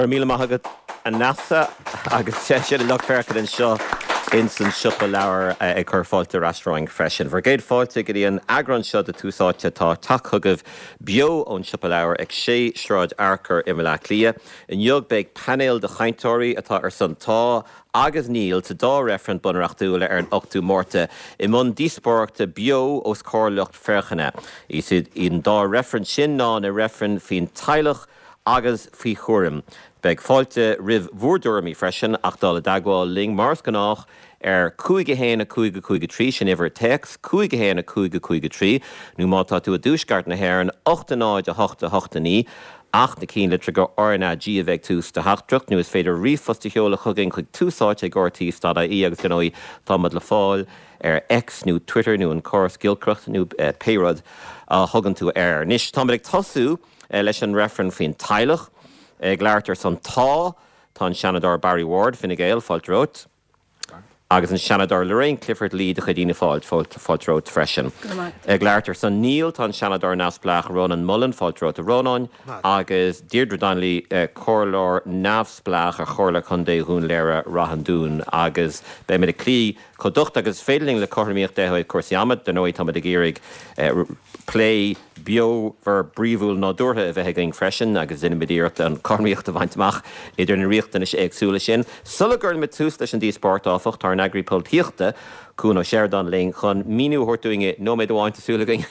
Go raibh míle maith agat a Neasa agus sin an lucht féachana anseo ins an Siopa Leabhar ag cur fáilte ar ais romhainn freisin. Bhur gcéad fáilte go dtí an eagrán seo de Tús Áite atá ag teacht chugaibh beo ón Siopa Leabhar ag 6 Sráid Fhearchair i mBaile Átha Cliath. Inniu beidh painéal de chainteoirí atá ar son Tá agus Níl sa dá reifreann bunreachtúil ar an 8ú Márta i mbun díospóireachta beo os comhair lucht féachana. Is iad an dá reifreann sin ná na reifrinn faoin teaghlach agus faoi chúram. Beidh fáilte roimh bhur dtuairimí freisin ach dul i dteagmháil linn mar is gnách ar 5 1 5 5 3, sin uimhir téacs, 5 1 5 5 3, nó má tá tú i dtuaisceart na hÉireann, 8 0 8 8 9, ach na cinnlitreacha RnaG a bheith ag tús do theachtaireacht, nó is féidir ríomhphost a sheoladh chugainn chuig túsáite ag rte.ie agus dar ndóigh táimid le fáil ar X nó Twitter nó an córas giolcaireachta nó pé rud a thugann tú air. Anois táimid ag tosú. Leis an reifreann faoin teaghlach. Ag labhairt ar son Tá, tá an Seanadóir Barry Ward, Fine Gael, fáilte romhat. Agus an Seanadóir Lorraine Clifford-Lee de chuid Fhianna Fáil, fáilte romhat freisin. Ag labhairt ar son Níl, tá an Seanadóir neamhspleách Rónán Mullen, fáilte romhat a Rónáin. Agus Deirdre Donnelly, Comhairleoir neamhspleách ar Chomhairle Contae Dhún Laoghaire Rath an Dúin. Agus beimid ag cloí chomh docht agus is féidir linn le cothromaíocht ó thaobh cúrsaí ama. Dar ndóigh táimid ag iarraidh plé beomhar bríomhúil nádúrtha a bheith againn freisin agus déanfaimid iarracht an chothromaíocht a bhaint amach idir na riachtanais éagsúla sin. Sula gcuirimid tús leis an díospóireacht, áfach, tá ár n-eagraí polaitíochta, Cuan Ó Seireadáin linn chun míniú a thabhairt dúinn i nóiméad amháin, tá súil againn,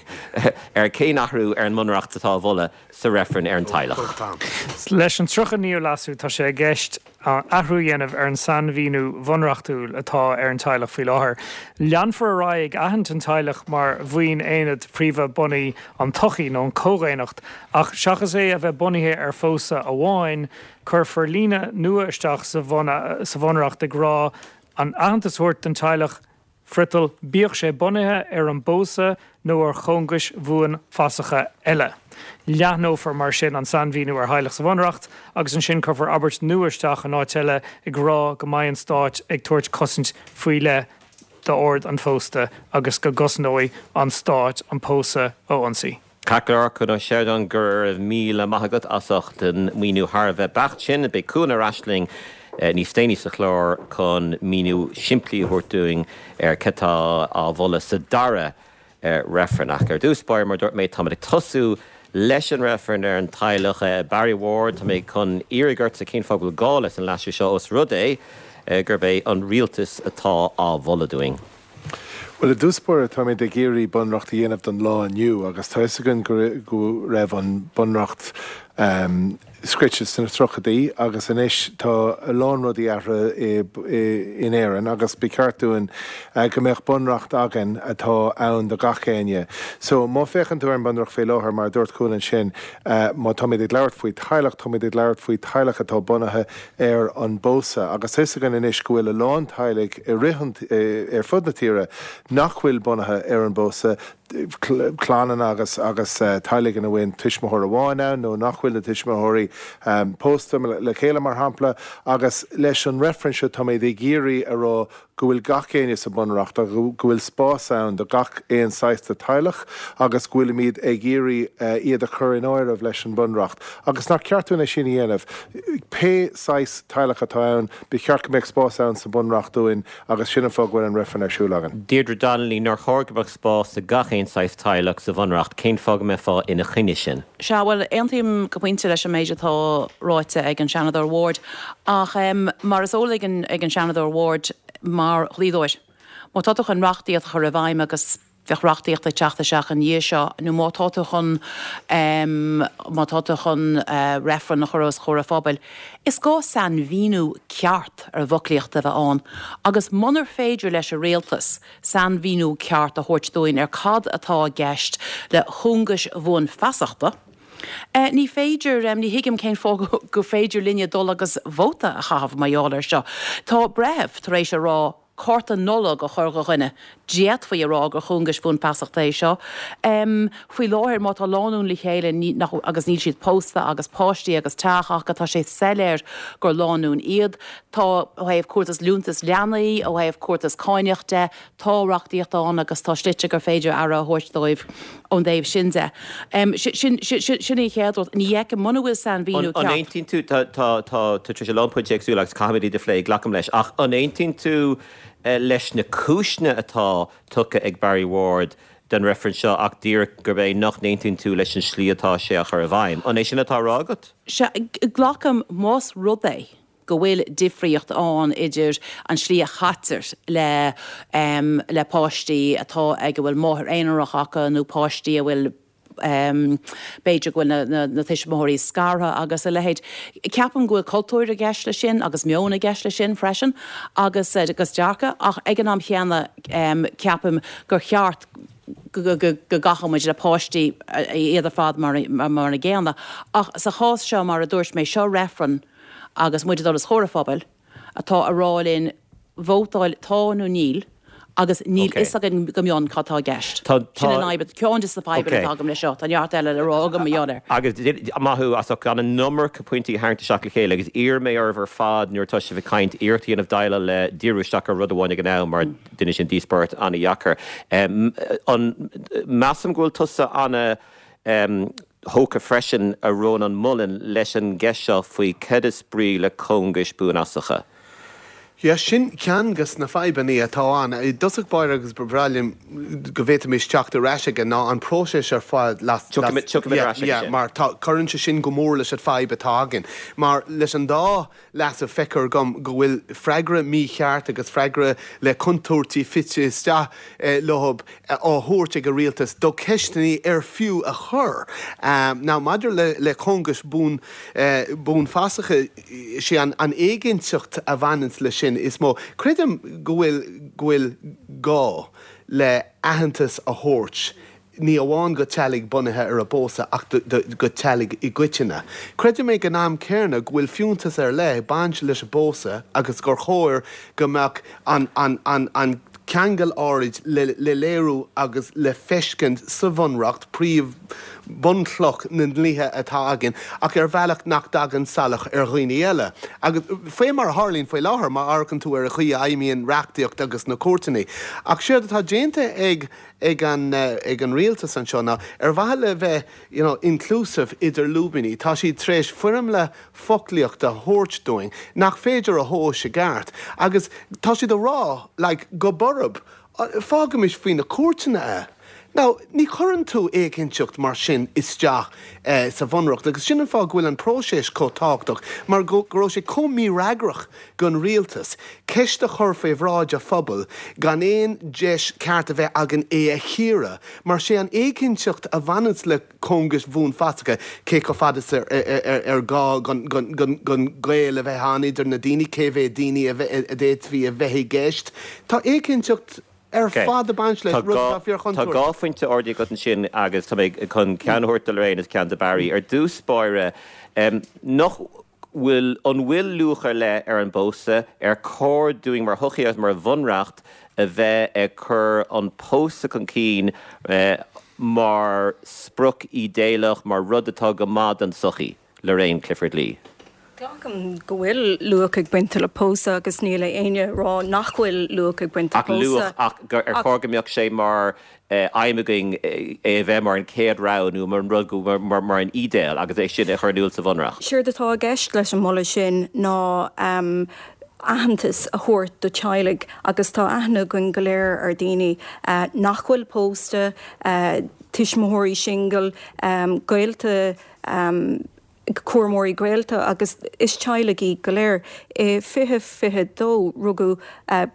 ar cén athrú ar an mBunreacht atá á mholadh sa reifreann ar an teaghlach. Leis an 39ú Leasú tá sé i gceist athrú a dhéanamh ar an sainmhíniú bhunreachtúil atá ar an teaghlach faoi láthair. Leanfar ar aghaidh ag aithint an teaghlach mar bhuíon aonad príomha bunaidh an tsochaí nó an comhdhaonnacht ach seachas é a bheith bunaithe ar phósadh amháin, cuirfear líne nua isteach sa bhunreacht ag rá an aitheantas a thabhairt don teaghlach Friotal, bíodh sé bunaithe ar an bpósadh nó ar chóngais bhuanfhasacha eile. Leathnófar mar sin an sainmhíniú ar theaghlach sa Bhunreacht agus ansin cuirfear abairt nua isteach in áit eile ag rá go mbeidh an Stát ag tabhairt cosaint faoi leith d'ord an phósta agus go gcosnóidh an Stát an pósadh ó ionsaí. Ceart go leor, Cuan Ó Seireadáin, go raibh míle maith agat as ucht an míniú thar a bheith beacht sin. Beidh Cuan ar ais linn níos déanaí sa chlár chun míniú simplí a thabhairt dúinn ar cad tá á mholadh sa dara reifreann. Ach ar dtús báire, mar a dúirt mé, táimid ag tosú leis an reifreann ar an teaghlach. Barry Ward, tá mé chun iarraidh ortsa cén fáth go bhfuil gá leis an leasú seo os rud é gurb é an rialtas atá á mholadh dúinn. Bhuel, i dtús báire, táimid ag iarraidh bunreacht a dhéanamh don lá inniu agus tá fhios againn go raibh an bunreacht scrite sna tríochaidí agus anois tá a lán rudaí athraithe in Éirinn agus ba cheart dúinn go mbeadh bunreacht againn atá ann do gach éinne. So, má féachann tú ar an bunreacht faoi láthair, mar a dúirt Cuan ansin, má táimid ag labhairt faoi teaghlach, táimid ag labhairt faoi teaghlach atá bunaithe ar an bpósadh agus tá fhios againn anois go bhfuil a lán teaghlaigh i rith an, ar fud na tíre nach bhfuil bunaithe ar an bpósadh, clannanna agus agus teaghlaigh ina bhfuil tuismitheoir amháin ann nó nach bhfuil na tuismitheoirí pósta le chéile mar shampla agus leis an reifreann seo táimid ag iarraidh a rá go bhfuil gach éinne sa Bhunreacht agus go bhfuil spás ann do gach aon saghas de teaghlach agus go bhfuilimid ag iarraidh iad a chur in áireamh leis an Bhunreacht agus nach ceart dúinn é sin a dhéanamh. Pé saghas teaghlach atá ann, ba cheart go mbeadh spás ann sa Bhunreacht dúinn agus sin an fáth go bhfuil an reifreann ar siúl againn. Deirdre Donnelly, Nár chóir go mbeadh spás do gach aon saghas teaghlach sa Bhunreacht? Cén fáth go mbeifeá ina choinne sin? Sea, bhuel, aontaím go pointe leis an méid atá ráite ag an Seanadóir Ward. Ach mar is eol ag an Seanadóir Ward, mar dhlíodóir, má tá tú chun reachtaíocht a chur i bhfeidhm, agus bheadh reachtaíocht ag teacht isteach ina dhiaidh seo, nó má tá tú chun, má tá tú chun reifreann a chur os comhair an phobail, is gá sainmhíniú ceart ar an bhfoclaíocht a bheith ann. Agus munar féidir leis an Rialtas sainmhíniú ceart a thabhairt dúinn ar cad atá i gceist le cóngais bhuanfheasachta, Ní féidir, ní thuigim cén fáth gur féidir linne dul agus vóta a chaitheamh mar gheall air seo. Tá breitheamh tar éis a rá. cárta Nollag a chur do dhuine, d'fhéadfaí a rá gur cóngais bhuanfheasachta é seo. Faoi láthair, má tá lánúin le chéile agus níl siad pósta agus páistí agus teach acu, tá sé soiléir gur lánúin iad. Tá, ó thaobh cúrtas liúntas leanaí, ó thaobh cúrtas cáineach de, tá reachtaíocht ann agus tá slite gur féidir aire a thabhairt dóibh ón dtaobh sin de. Sin sin an chéad rud. Ní fheicim, muna bhfuil sainmhíniú ceart. An aontaíonn tú, tá tá tá tú tar éis a lán pointí éagsúla agus caithfimid iad a phlé, glacaim leis, ach an aontaíonn tú leis na cúiseanna atá tugtha ag Barry Ward don reifreann seo ach díreach gurb é nach n-aontaíonn tú leis an slí atá sé á chur i bhfeidhm? An é sin atá á rá agat? Sea, glacaim más rud é go bhfuil difríocht ann idir an slí a chaitear le le páistí atá ag a bhfuil máthair aonarach acu nó páistí a bhfuil b'fhéidir go bhfuil na na tuismitheoirí scartha agus a leithéid. Ceapaim go bhfuil cultúr i gceist leis sin agus meon i gceist leis sin freisin agus agus dearcadh ach ag an am chéanna ceapaim gur cheart go gcaithfeadh muid le páistí iad ar fad mar mar an gcéanna. Ach sa chás seo mar a dúirt mé seo reifreann agus muid ag dul os comhair an phobail atá a rá linn vótáil tá nó níl agus níl fhios againn go mion cad tá i gceist. Sin an fhadhb, ceann de na fadhbanna atá agam leis seo. Tá neart eile le rá agam mar gheall air. Agus maith thú as ucht gan an iomarca pointí a tharraingt isteach le chéile agus iarrfaidh mé oraibh ar fad nuair atá sibh ag caint iarracht a dhéanamh déileáil le díriú isteach ar rud amháin ag an am mar déanann sin díospóireacht an-dheacair. An measaim go bhfuil tusa ana thógtha freisin, a Rónán Mullen, leis an gceist seo faoi cad is brí le cóngais bhuanfheasacha. Yeah, sin ceann de na fadhbanna atá ann. I dtosach báire agus ba bhreá liom go bhféadfaimis teacht ar ais aige ná an próiseas ar fad las, Tiocfaimid, tiocfaimid ar ais aige yeah, sin. mar tá, cuireann sé sin go mór leis an fadhb atá againn. Mar leis an dá leasú feictear dom go bhfuil freagra mícheart agus freagra le contúirtí fite isteach leo á thabhairt ag an rialtas do cheisteanna ar fiú a chur. Now maidir le cóngais bhuanfheasacha, sé an éiginnteacht a bhaineanns leis sin is mó. Creidim go bhfuil go bhfuil gá le aitheantas a thabhairt ní amháin go teaghlaigh bunaithe ar an bpósadh ach go teaghlaigh i gcoitinne. Creidim ag an am céanna go bhfuil fiúntas ar leith ag baint leis an bpósadh agus gur chóir go mbeadh an an ceangal áirid le léiriú agus le feiscint sa Bhunreacht, príomh bunchloch na ndlíthe atá againn, ach ar bhealach nach dtagann salach ar dhaoine eile. Agus faoi mar a tharlaíonn faoi láthair, má amharcann tú ar an chaoi a fheidhmíonn reachtaíocht agus na cúirteanna. Ach séard atá déanta ag ag an ag an rialtas anseo ná, ar mhaithe le bheith you know inclusive idir lúibíní, tá siad tar éis foirmle foclaíochta a thabhairt dúinn nach féidir a thomhas i gceart agus tá siad a rá like go borb, fágaimis faoi na cúirteanna é. Now, ní chuireann tú éiginnteacht mar sin isteach sa Bhunreacht agus sin an fáth go bhfuil an próiseas chomh tábhachtach mar go raibh sé chomh mífhreagrach don rialtas ceist a chur faoi bhráid an phobail gan aon deis ceart a bheith againn é a chíoradh mar sé an éiginnteacht a bhaineanns le cóngais bhuanfheasacha, cé chomh fada is ar gá don gaol a bheith ann idir na daoine, cé mhéad daoine a d'fhéadfaí a bheith i gceist. Tá éiginnteacht ar fad ag baint leis, rud atá fíorchontúirteach. Tá dhá phointe ardaithe agat ansin agus tá mé chun ceann a thabhairt do Lorraine agus ceann do Barry. Ar dtús báire, nach bhfuil, an bhfuil luach ar leith ar an bpósadh? Ar chóir dúinn mar shochaí agus mar bhunreacht a bheith ag cur an pósadh chun cinn mar sprioc ídéalach, mar rud atá go maith don tsochaí? Lorraine Clifford-Lee. Glacaim go bhfuil luach ag baint le pósadh agus níl éinne ag rá nach bhfuil luach ag baint le Ach luach, pósadh. ach ar chóir go mbeadh sé mar aidhm againn é a bheith mar an chéad rogha nó mar an rud go, mar an ídéal agus é sin a chur in iúl sa Bhunreacht. Séard atá i gceist leis an moladh sin ná aitheantas a thabhairt do teaghlaigh agus tá aithne againn go léir ar daoine nach bhfuil pósta, tuismitheoirí singil, gaolta, cúramóirí gaolta agus is teaghlaigh iad go léir. I 2022 rugadh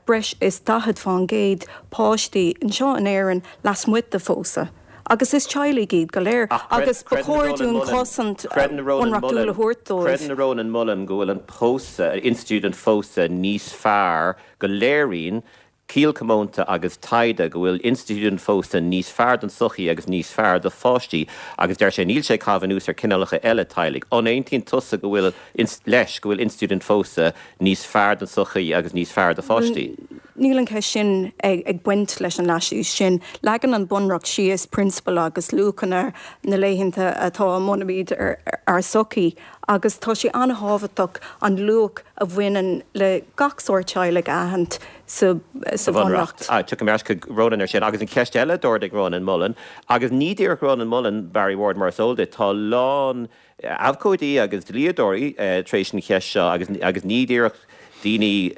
breis is 40% páistí anseo in Éirinn lasmuigh de phósadh agus is teaghlaigh iad go léir agus ba chóir dúinn cosaint bhunreachtúil a thabhairt dóibh. Creideann Rónán Mullen go bhfuil an pósadh, institiúid an phósadh níos fearr, go léiríonn Ciall comónta agus taighde go bhfuil institiúid an phósta níos fearr don tsochaí agus níos fearr do pháistí agus deir sé níl sé ag caitheamh anuas ar cineálacha eile teaghlaigh. An aontaíonn tusa go bhfuil, leis, go bhfuil institiúid an phósta níos fearr don tsochaí agus níos fearr do pháistí? Níl an cheist sin ag baint leis an leasú sin. Leagann an Bunreacht síos prionsabail agus luachanna na laethanta atá a mbunaímid ár sochaí agus tá sé an-thábhachtach an luach a bhaineann le gach sórt teaghlaigh a aithint sa Bhunreacht. Tiocfaidh mé ar ais chuig Rónán ar sin. Agus an cheist eile a d'ardaigh Rónán Mullen, agus ní díreach Rónán Mullen, Barry Ward, mar is eol duit, tá a lán abhcóidí agus dlíodóirí tar éis an cheist seo agus ní díreach daoine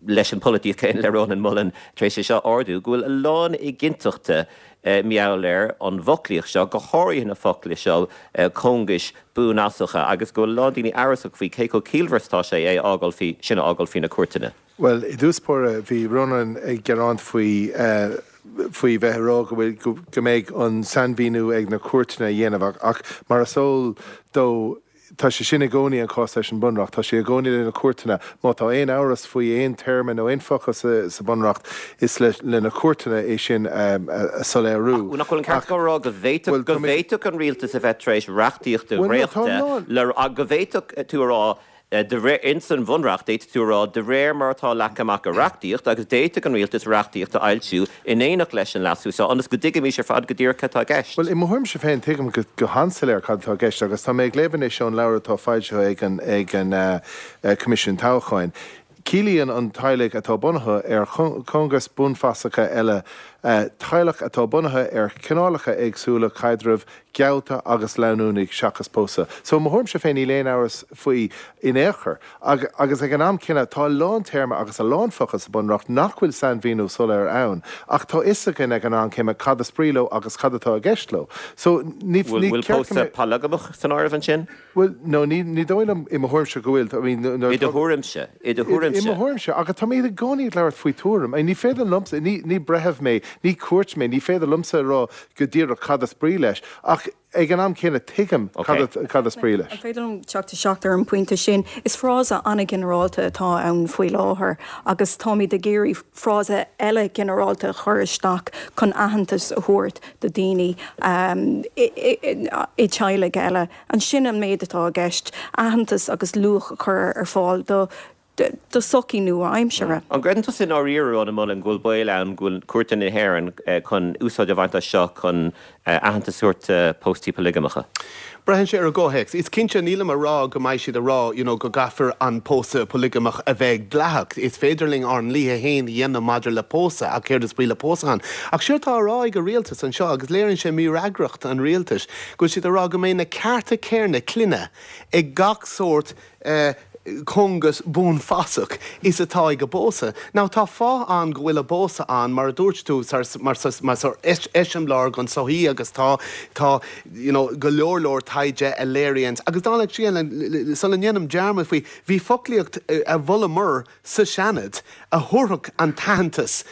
leis an pholaitíocht chéanna le Rónán Mullen tar éis é seo a ardú, go bhfuil a lán éiginnteachta mar gheall ar an bhfoclaíocht seo, go háirithe na focla seo, cóngais bhuanfhasacha, agus go bhfuil a lán daoine amhrasach faoi cé chomh ciallmhar is atá sé é a fhágáil faoi, sin a fhágáil faoi na cúirteanna. Bhuel, i dtús báire, bhí Rónán ag gearán faoi, faoi bheith ag rá go bhfuil, go mbeidh an sainmhíniú ag na cúirteanna a dhéanamh ach mar is eol dó, Tá sé sin i gcónaí an cás leis an Bunreacht. Tá sé i gcónaí le na cúirteanna. Má tá aon amhras faoi aon téarma nó aon focal sa Bhunreacht, is le na cúirteanna é sin a soiléiriú. Ach nach bhfuil an ceart acu a rá go bhféadfadh, go bhféadfadh an rialtas a bheith tar éis reachtaíocht a dhréachtadh le, go bhféadfadh tú a rá, De réir, ins an Bhunreacht, d'fhéadfadh tú a rá, de réir mar atá leagtha amach i reachtaíocht, agus d'fhéadfadh an Rialtas reachtaíocht a fhoilsiú in éineacht leis an leasú seo, ionas go dtuigfimis ar fad go díreach cad atá i gceist. Bhuel, i mo thuairimse féin, tuigim go han-soiléir cad atá i gceist, agus tá mé ag léamh anois ón leabhar atá foilsithe ag an ag an Coimisiún Toghcháin. Ciallaíonn an teaghlaigh atá bunaithe ar chóngais buanfasacha eile teaghlach atá bunaithe ar chineálacha éagsúla caidrimh, geallta agus leanúnaigh seachas pósadh. So, i mo thuairimse féin, níl aon amhras faoi in aon chor. Agus ag an am céanna, tá a lán téarma agus a lán focal sa Bunreacht nach bhfuil sainmhíniú soiléir ann, ach tá fhios againn ag an am céanna cad is brí leo agus cad atá i gceist leo. So, ní ceart go mbeadh. Bhfuil pósadh polagamach san áireamh ansin? Bhuel, no, ní, ní dóigh liom, i mo thuairimse, go bhfuil. I mean, nuair I do thuairimse, i do thuairimse. I mo thuairimse, agus tá mé i gcónaí ag labhairt faoi tuairim. I mean, ní féidir liomsa, ní, ní breitheamh mé, ní cúirt mé, ní féidir liomsa a rá go díreach cad is brí leis, ach ag an am céanna tuigim cad, cad is brí leis. An féidir liom teacht isteach ar an bpointe sin? Is frása an-ghinearálta atá ann faoi láthair agus táimid ag iarraidh frása eile ginearálta a chur isteach chun aitheantas a thabhairt do daoine i dteaghlaigh eile. Ansin an méid atá i gceist, aitheantas agus luach a chur ar fáil do do sochaí nua-aimseartha. An gcreideann tusa i ndáiríre, Rónán Mullen, go bhfuil baol ann go bhfuil cúirteanna na hÉireann chun úsáid a bhaint as seo chun aitheantas a thabhairt do phóstaí polaigeamacha? Braitheann sé ar an gcomhthéacs. Is cinnte, nílim a rá go mbeidh siad a rá you know go gcaithfear an pósadh polaigeamach a bheith dleathach. Is féidir linn ár ndlíthe féin a dhéanamh maidir le pósadh ach céard is brí le pósadh ann? Ach séard tá á rá ag an rialtas anseo, agus léiríonn sé mífhreagracht an rialtais, go bhfuil siad a rá go mbeidh na cearta céarna clainne ag gach sórt eh cóngas buanfasach is atá ag an bpósadh. Now tá fáth ann go bhfuil an pósadh ann, mar a dúirt tú, mar eiseamláir don tsochaí agus tá, tá you know go leor leor taighde a léiríonns, agus dála an scéil, sula ndéanaim dearmad faoi, bhí foclaíocht a mholamar sa Seanad a thabharfadh an t-aitheantas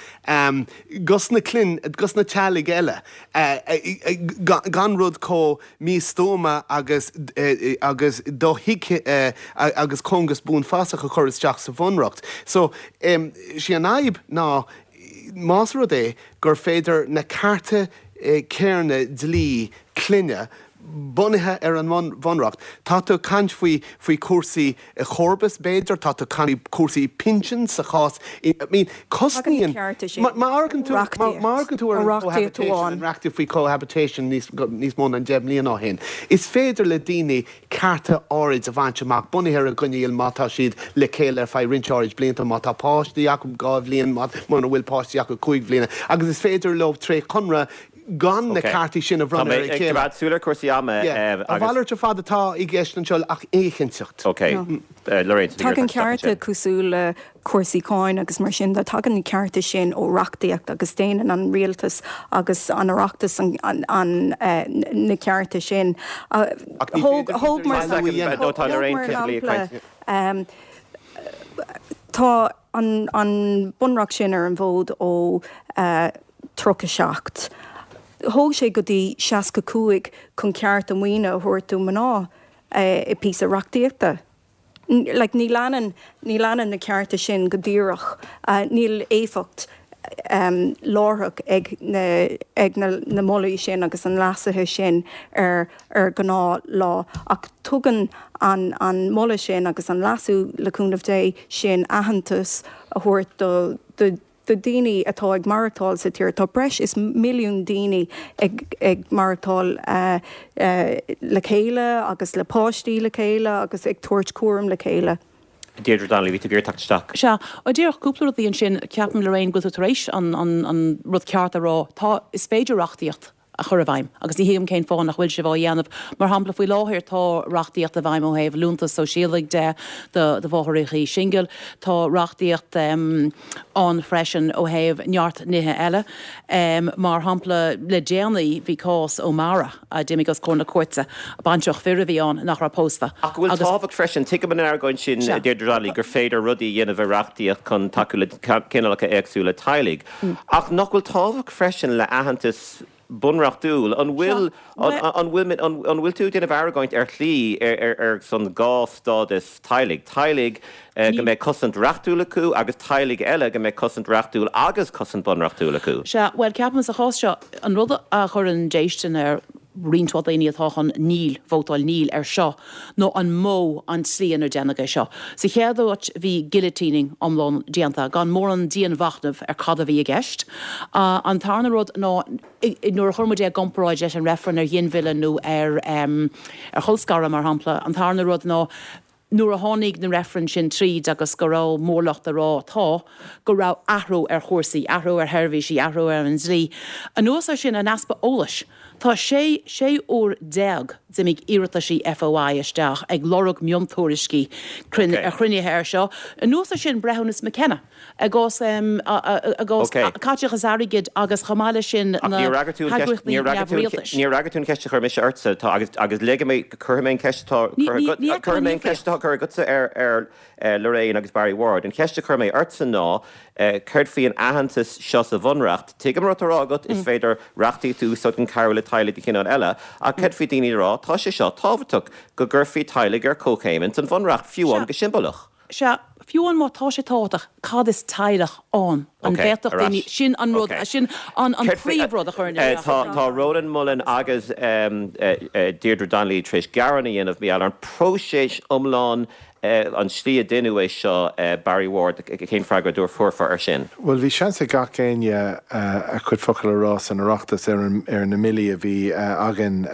dos na clainn, dos na teaghlaigh eile, gan rud chomh místuama agus agus dothuigthe agus cóngas buanfasach a chur isteach sa Bhunreacht. So, sí an fhadhb ná más rud é gur féidir na cearta céarna dlí clainne bunaithe ar an mBunreacht. Tá tú ag caint faoi faoi chúrsaí comharbas b'fhéidir, tá tú ag caint faoi chúrsaí pinsin sa chás, I mean cosnaíonn, má amharcann tú, má amharcann tú ar an cohabitation, an reachtaíocht faoi cohabitation níos níos mó ná 10 mbliana ó shin, is féidir le daoine cearta áirid a bhaint amach bunaithe ar an gcoinníoll má tá siad le chéile ar feadh roinnt áirid blianta, má tá páistí acu 2 bhliain, muna bhfuil páistí acu 5 bhliana agus is féidir leo tré chonradh gan na ceartaí sin a bhronnadh ar a chéile. Tá mé ag coimeád súil ar chúrsaí ama agus. A mhalairt ar fad atá i gceist anseo ach éiginnteacht. Ok. Lorraine, tá tú ag iarraidh teacht isteach ansin. Tagann cearta cosúil le cúrsaí cáin agus mar sin de, tagann na cearta sin ó reachtaíocht agus déanann an rialtas agus an Oireachtas na cearta sin. Ach ní féidir Thóg mar shampla, tá an bunreacht sin ar an bhfód ó 37. Thóg sé go dtí 65 chun cearta maoine a thabhairt do mhná i píosa reachtaíochta. Like, ní leanann, ní leanann na cearta sin go díreach, níl éifeacht láithreach ag na, ag na, na molaí sin agus an leasuithe sin ar, ar ghnáth lá. Ach tugann an, an moladh sin agus an leasú, le cúnamh Dé, sin aitheantas a thabhairt do, do. do daoine atá ag maireachtáil sa tír. Tá breis is milliún daoine ag ag maireachtáil le chéile agus le páistí le chéile agus ag tabhairt cúram le chéile. Deirdre Donnelly, bhí tú ag iarraidh teacht isteach. Sea, díreach cúpla rudaí ansin. Ceapaim, Lorraine, go bhfuil tú tar éis an an rud ceart a rá. Tá, is féidir reachtaíocht a chur i bhfeidhm agus ní thuigim cén fáth nach bhfuil sibh á dhéanamh. Mar shampla, faoi láthair tá reachtaíocht i bhfeidhm ó thaobh liúntas sóisialaigh de do mháithreacha singil. Tá reachtaíocht ann freisin ó thaobh neart nithe eile. Mar shampla, le déanaí bhí cás O'Mara a d'imigh os comhair na cúirte, baintreach fir a bhí ann nach raibh pósta Ach go bhfuil agus. tábhacht freisin, tuigim an argóint sin, a Deirdre Donnelly, gur féidir rudaí a dhéanamh i reachtaíocht chun tacú le cineálacha éagsúla teaghlaigh. Ach nach bhfuil tábhacht freisin le aitheantas bunreachtúil? An bhfuil, an bhfuil, an bhfuil tú ag déanamh argóint ar shlí ar son dhá stádas teaghlaigh, teaghlaigh go mbeidh cosaint reachtúil acu agus teaghlaigh eile go mbeidh cosaint reachtúil agus cosaint bunreachtúil acu? Sea, bhuel, ceapaim sa chás seo, an rud a chuireann déistin ar roinnt mhaith daoine atá chun níl, vótáil níl ar seo, ná an modh, an tslí inar déanadh é seo. Sa chéad áit bhí guillotining iomlán déanta, gan mórán dianmhachnaimh ar cad a bhí i gceist. An tarna rud ná nuair a chuir muid é i gcomparáid leis an reifreann ar ghinmhilleadh nó ar ar cholscaradh, mar shampla, an tarna rud ná nuair a tháinig na reifrinn sin tríd agus go raibh mórlucht ag rá tá, go raibh athrú ar chúrsaí, athrú ar sheirbhísí, athrú ar an dlí. Anuas ar sin, an easpa eolais. Tá sé 16 uair d'imigh iarrataisí FOI isteach ag lorg miontuairiscí ar chruinnithe ar seo. Anuas ar sin, breithiúnas McKenna. I gcás i gcás caiteachas airgid agus chomh maith leis sin na heagraíochtaí neamhrialtais. Níor fhreagair tú an cheist a chuir mise ortsa tá agus agus ligfidh mé cuirfidh mé an cheist atá cuirfidh mé an cheist atá curtha agatsa ar ar Lorraine agus Barry Ward. An cheist a chuir mé ortsa ná céard faoi an aitheantas seo sa Bhunreacht? Tuigim an rud atá á rá agat, is féidir reachtaíocht a úsáid chun cabhrú le teaghlaigh de chineál eile, ach céard faoi daoine ag rá tá sé seo tábhachtach go gcuirfí teaghlaigh ar comhchéim ins an Bhunreacht, fiú amháin go siombalach. Sea, fiú amháin má tá sé tábhachtach, cad is teaghlach ann? An bhféadfadh daoine, sin an rud, sin an príomhrud a chuireann isteach orm. Tá Rónán Mullen agus Deirdre Donnelly tar éis gearán a dhéanamh mar gheall ar an próiseas iomlán, an tslí a deineadh é seo, Barry Ward, cén freagra a thabharfá air sin? Bhuel, bhí seans ag gach éinne a chuid focal a rá san Oireachtas ar ar na mbillí a bhí againn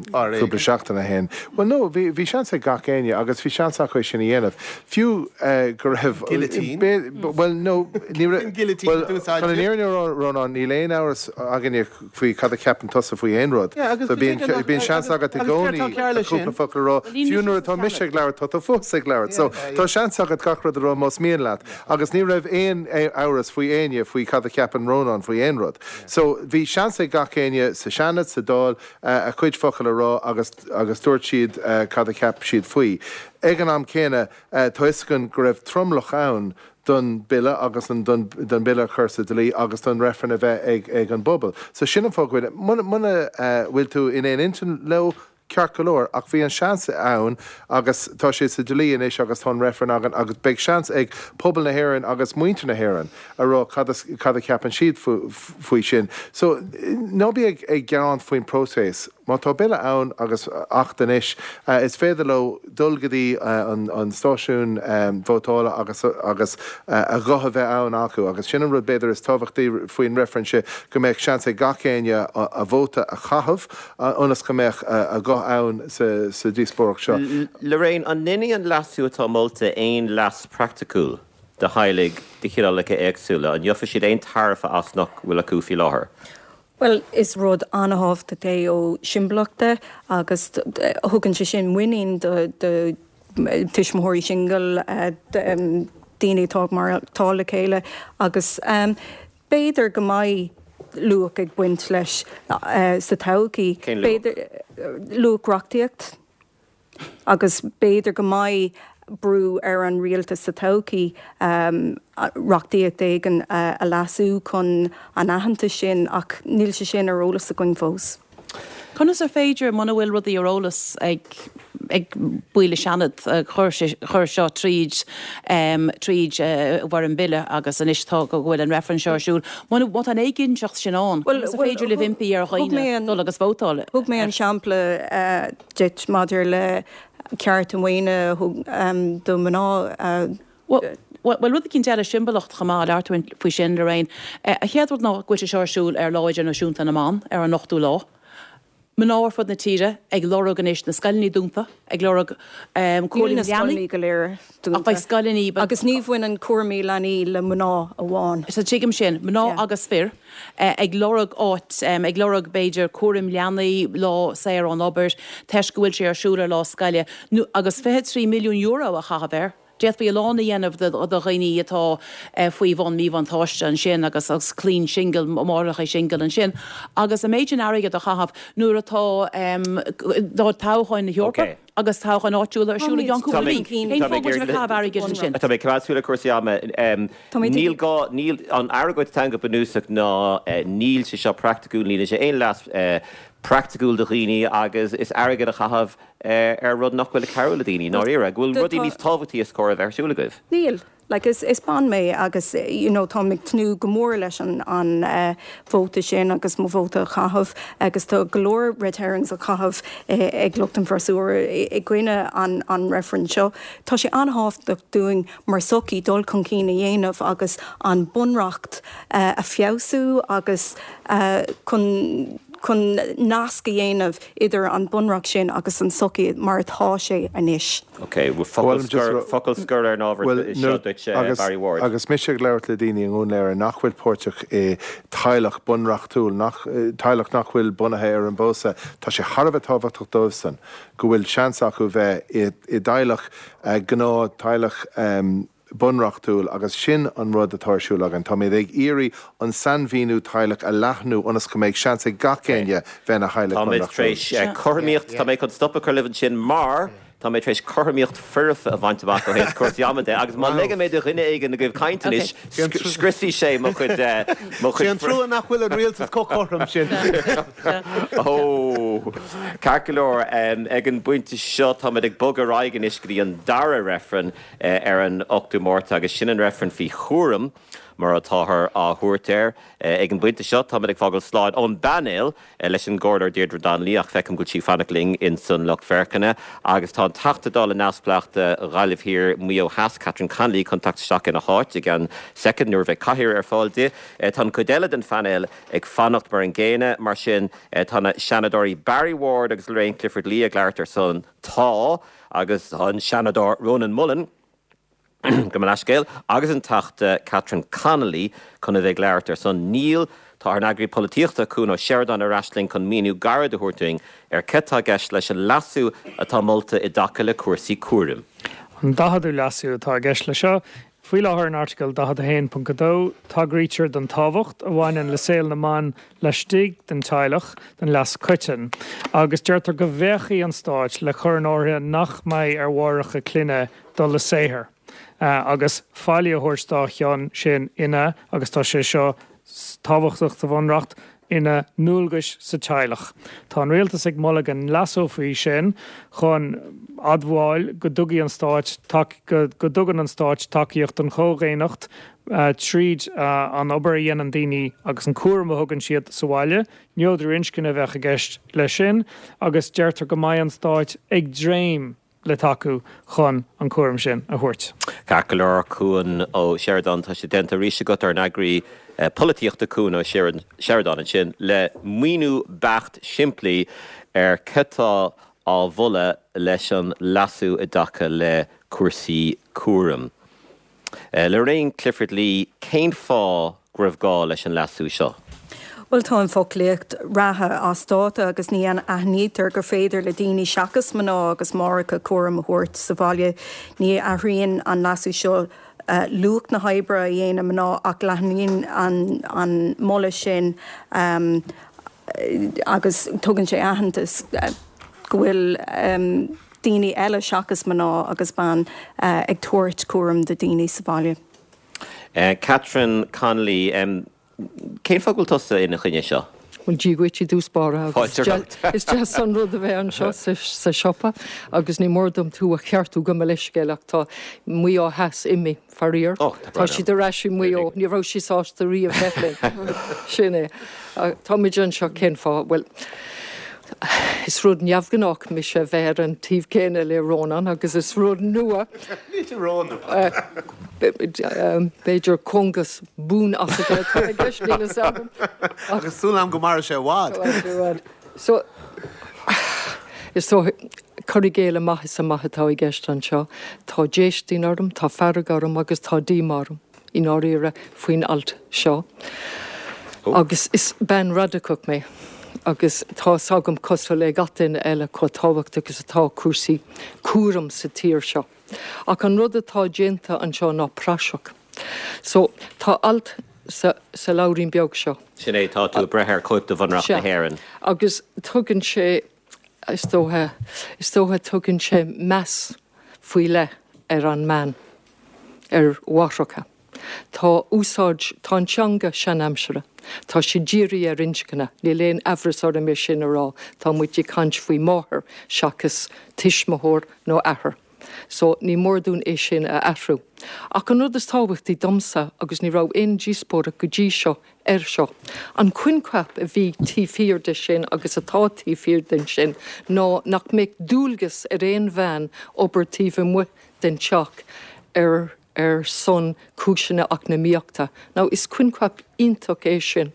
cúpla seachtain ó shin. Bhuel, no, bhí, bhí seans ag gach éinne agus bhí seans acu é sin a dhéanamh. Fiú go raibh. Guillotine? Bhuel, no, ní raibh. Cén guillotine a d'úsáid Chun an fhírinne a rá, Rónán, níl aon amhras againne faoi cad a cheapann tusa faoi aon rud. Yeah, agus So bíonn, cé nach, bíonn seans agus, agat i agus céard gcónaí tá cearr leis cúpla sin? focal a rá. Bhuel, ní Fiú mise nuair sa atá mise Seanad. ag labhairt, tá tú fós ag labhairt. So Yeah, tá yeah. seans agat gach rud a rá más mian leat. Agus ní raibh aon amhras faoi éinne faoi cad a cheapann Rónán faoi aon rud. So bhí seans ag gach éinne sa Seanad, sa Dáil, a chuid focal a rá agus agus dúirt siad cad a cheap siad faoi. Ag an am céanna, tá fhios againn go raibh tromlach ann don bille agus an don don bille a chur sa dlí agus don reifreann a bheith ag ag an bpobal. So sin an fáth go bhfuil, muna muna bhfuil tú in aon intinn leo, ceart go leor, ach bhí an seans ann agus tá sé sa dlí anois agus tá an reifreann againn agus beidh seans ag pobal na hÉireann agus muintir na hÉireann a rá cad cad a cheapann siad faoi sin. So, ná bí ag ag gearán faoin próiseas. Má tá bille ann agus acht anois, is féidir leo dul go dtí an an stáisiún vótála agus agus a ghuth a bheith ann acu agus sin an rud b'fhéidir is tábhachtaí faoin reifreann seo, go mbeadh seans ag gach éinne a vóta a chaitheamh ionas go mbeadh a ghuth ann sa díospóireacht seo. Lorraine, an ndéanfaidh an leasú atá molta aon leas praiticiúil do theaghlaigh de chineálacha éagsúla? An ngeofaidh siad aon tairbhe as nach bhfuil acu faoi láthair? Bhuel, is rud an-thábhachtach é ó shiombalach de agus thugann sé sin muinín do tuismitheoirí singil, daoine atá ag maireachtáil le chéile agus b'fhéidir go mbeidh luach ag baint leis sa todhchaí. Cén luach? B'fhéidir luach reachtaíocht. Agus b'fhéidir go mbeidh brú ar an rialtas sa todhchaí reachtaíocht éigin a leasú chun an aitheantas sin, ach níl sé sin ar eolas againn fós. Conas ar féidir, muna bhfuil rudaí ar eolas ag ag baill an Seanad, chuir sé chuir seo tríd tríd i bhfoirm bille agus anois tá go bhfuil an reifreann seo ar siúl, muna má tá an éiginnteacht sin ann, conas ar féidir libh impí ar dhaoine dul agus vótáil? Thug mé an sampla duit maidir le cearta maoine do mhná. Bhuel, rud eicínt eile, siombalach chomh maith, labhair tú faoi sin, Lorraine. An chéad rud ná go bhfuil sé seo ar siúl ar Lá Idirnáisiúnta na mBan, ar an ochtú lá. Mná ar fud na tíre ag lorg anois na scoileanna dúnta, ag lorg Níl cúram na leanaí. scoileanna go léir Ach beidh dúnta. scoileanna. Agus ní bhaineann cúraimí leanaí le mná amháin. Sea, tuigim sin. Mná Yeah. agus fir ag lorg áit, ag lorg b'fhéidir cúram leanaí, lá saor ón obair, toisc go bhfuil sé ar siúl ar lá scoile, nó agus €23 milliún a chaitheamh air. D'fhéadfaí a lán a dhéanamh do dhaoine atá faoi bhun míbhuntáiste ansin agus agus clainn singil, máithreacha singil ansin agus an méid sin airgid a chaitheamh nuair atá tá toghcháin na hEorpa agus toghcháin áitiúla ar siúl i gceann cúpla mí. Cén fáth go bhfuil sibh ag caitheamh airgid ansin? Tá mé ag coimeád súil ar cúrsaí ama. Níl gá, níl, an argóint atá ann go bunúsach ná níl sé seo praiticiúil, níl sé aon leas praiticiúil do dhaoine agus is airgead a chaitheamh ar rud nach bhfuil ag cabhrú le daoine, i ndáiríre, go bhfuil rudaí níos tábhachtaí is cóir a bheith ar siúl agaibh. Níl. Like, is, is bean mé agus, you know, táim ag tnúth go mór leis an, an vóta sin agus mo vóta a chaitheamh agus tá go leor red herrings á chaitheamh ag lucht an bhfreasúra i gcoinne an, an reifrinn seo. Tá sé an-thábhachtach dúinn mar sochaí dul chun cinn a dhéanamh agus an bunreacht a feabhsú agus chun, chun nasc a dhéanamh idir an bunreacht sin agus an sochaí mar atá sé anois. Ok, focal scoir, focal scoir ar an ábhar seo duit, Barry Ward. Agus mise ag labhairt le daoine i nDún Laoghaire nach bhfuil páirteach i teaghlach bunreachtúil, nach, teaghlach nach bhfuil bunaithe ar an bpósadh, tá sé thar a bheith tábhachtach dóibhsan go bhfuil seans acu bheith i dteaghlach, gnáth teaghlach, bunreachtúil agus sin an rud atá ar siúl againn. Táimid ag iarraidh an sainmhíniú teaghlach a leathnú ionas go mbeidh seans ag gach éinne bheith ina theaghlach Táimid tar bunreachtúil. éis cothromaíocht, tá mé chun stop a chur libh ansin mar tá mé tar éis cothromaíocht foirfe a bhaint amach ó thaobh cúrsaí ama de agus má ligeann mé do dhuine éigin agaibh caint anois, scriosfaidh sé mo chuid, mo Sé chuid. an trua nach bhfuil an rialtas chomh cothrom sin. Ó! Ceart go leor, ag an bpointe seo táimid ag bogadh ar aghaidh anois go dtí an dara reifreann. ar an 8ú Márta agus sin an reifreann faoi chúram mar atáthar á thabhairt air. Ag an bpointe seo táimid ag fágáil slán ón bpainéal leis an gComhairleoir Deirdre Donnelly ach feicim go bhfuil sí ag fanacht linn ins an lucht féachana agus tá an Teachta Dála neamhspleách do Ghaillimh Thiar, Maigh Eo Theas, Catherine Connolly chun teacht isteach ina háit i gceann soicind nuair a bheidh cathaoir ar fáil di. Tá an chuid eile den phainéal ag fanacht mar an gcéanna mar sin tá na Seanadóirí Barry Ward agus Lorraine Clifford-Lee ag labhairt ar son Tá agus tá an Seanadóir Rónán Mullen, gabh mo leithscéal, agus an Teachta Catherine Connolly chun a bheith ag labhairt ar son Níl. Tá ár n-eagraí polaitíochta, Cuan Ó Seireadáin ar ais linn chun míniú gairid a thabhairt dúinn ar céard atá i gceist leis an leasú atá molta i dtaca le cúrsaí cúraim. An 40ú leasú atá i gceist leis seo. Faoi láthair in Airteagal 41.2, tagraítear don tábhacht a bhaineann le saol na mban laistigh den teaghlach don leas coiteann, agus deirtear go bhféachfaidh an Stát le cur in áirithe nach mbeidh ar mháithreacha clainne dul le saothar agus faillí a thabhairt dá chionn sin ina, agus tá sé seo tábhachtach sa Bhunreacht, ina ndualgais sa teaghlach. Tá an rialtas ag moladh go leasófaí sin chun admháil go dtugaidh an stáit go dtugann an stáit tacaíocht don chomhdhaonnacht tríd an obair a dhéanann daoine agus an cúram a thugann siad sa bhaile. Neodrú inscne a bheadh i gceist leis sin agus deirtear go mbeidh an stáit ag dréim le tacú chun an cúram sin a thabhairt. Ceart go leor, Cuan Ó Seireadáin, tá sé déanta arís agat ár n-eagraí polaitíochta Cuan Ó Seireadáin ansin le míniú beacht simplí ar cad tá á mholadh leis an leasú i dtaca le cúrsaí cúraim. Lorraine Clifford-Lee, cén fáth go raibh gá leis an leasú seo? Bhuel, tá an foclaíocht reatha as dáta agus ní aithnítear gur féidir le daoine seachas mná agus máithreacha cúram a thabhairt sa bhaile. Ní athraíonn an leasú seo luach na hoibre a dhéanann mná ach leathnaíonn an moladh sin agus tugann sé aitheantas go bhfuil daoine eile seachas mná agus ban ag tabhairt cúram do daoine sa bhaile. Catherine Connolly, Cén fáth go bhfuil tusa ina choinne seo? Bhuel, Dia dhuit i dtús báire agus Fáilte romhat. is deas an rud a bheith anseo sa siopa agus ní mór dom tú a cheartú gabh mo leithscéal ach tá Maigh Eo Theas imithe, faraor. Ó, tá Tá brón orm. siad ar ais i Maigh Eo. Ní raibh sí sásta riamh bheith linn. Sin é. Táimid anseo cén fáth? Bhuel, is rud neamhghnách mise a bheith ar an taobh céanna le Rónán agus is rud nua. Níl sé rónua. B'fhéidir cóngas buan-asaithe atá i gceist, níl fhios agam. Agus súil agam go mairfidh sé i bhfad. So, is dócha, cur i gcéille amach is amach atá i gceist anseo. Tá déistin orm, tá fearg orm agus tá díomá orm, i ndáiríre, faoin alt seo. Agus is bean radacach mé agus tá fhios agam, cosúil le gach duine eile, chomh tábhachtach is atá cúrsaí cúraim sa tír seo. Ach an rud atá déanta anseo ná praiseach. So, tá alt sa, sa leabhairín beag seo. Sin é, tá tú ag breith ar chóip de Bhunreacht na Sea. hÉireann. Agus tugann sé, is dócha, is dócha tugann sé meas faoi leith ar an mbean, ar mháithreacha. Tá úsáid, tá an teanga seanaimseartha. Tá sé dírithe ar inscne, níl aon aimhreas orm é sin a rá, tá muid ag caint faoi máthair seachas tuismitheoir nó athair. So, ní mór dúinn é sin a athrú. Ach an rud is tábhachtaí domsa, agus ní raibh aon díospóireacht go dtí seo air seo, an coincheap a bhí taobh thiar de sin agus atá taobh thiar den sin ná nach mbeadh dualgas ar aon bhean obair taobh amuigh den teach ar ar son cúiseanna eacnamaíochta. Now, is coincheap iontach é sin,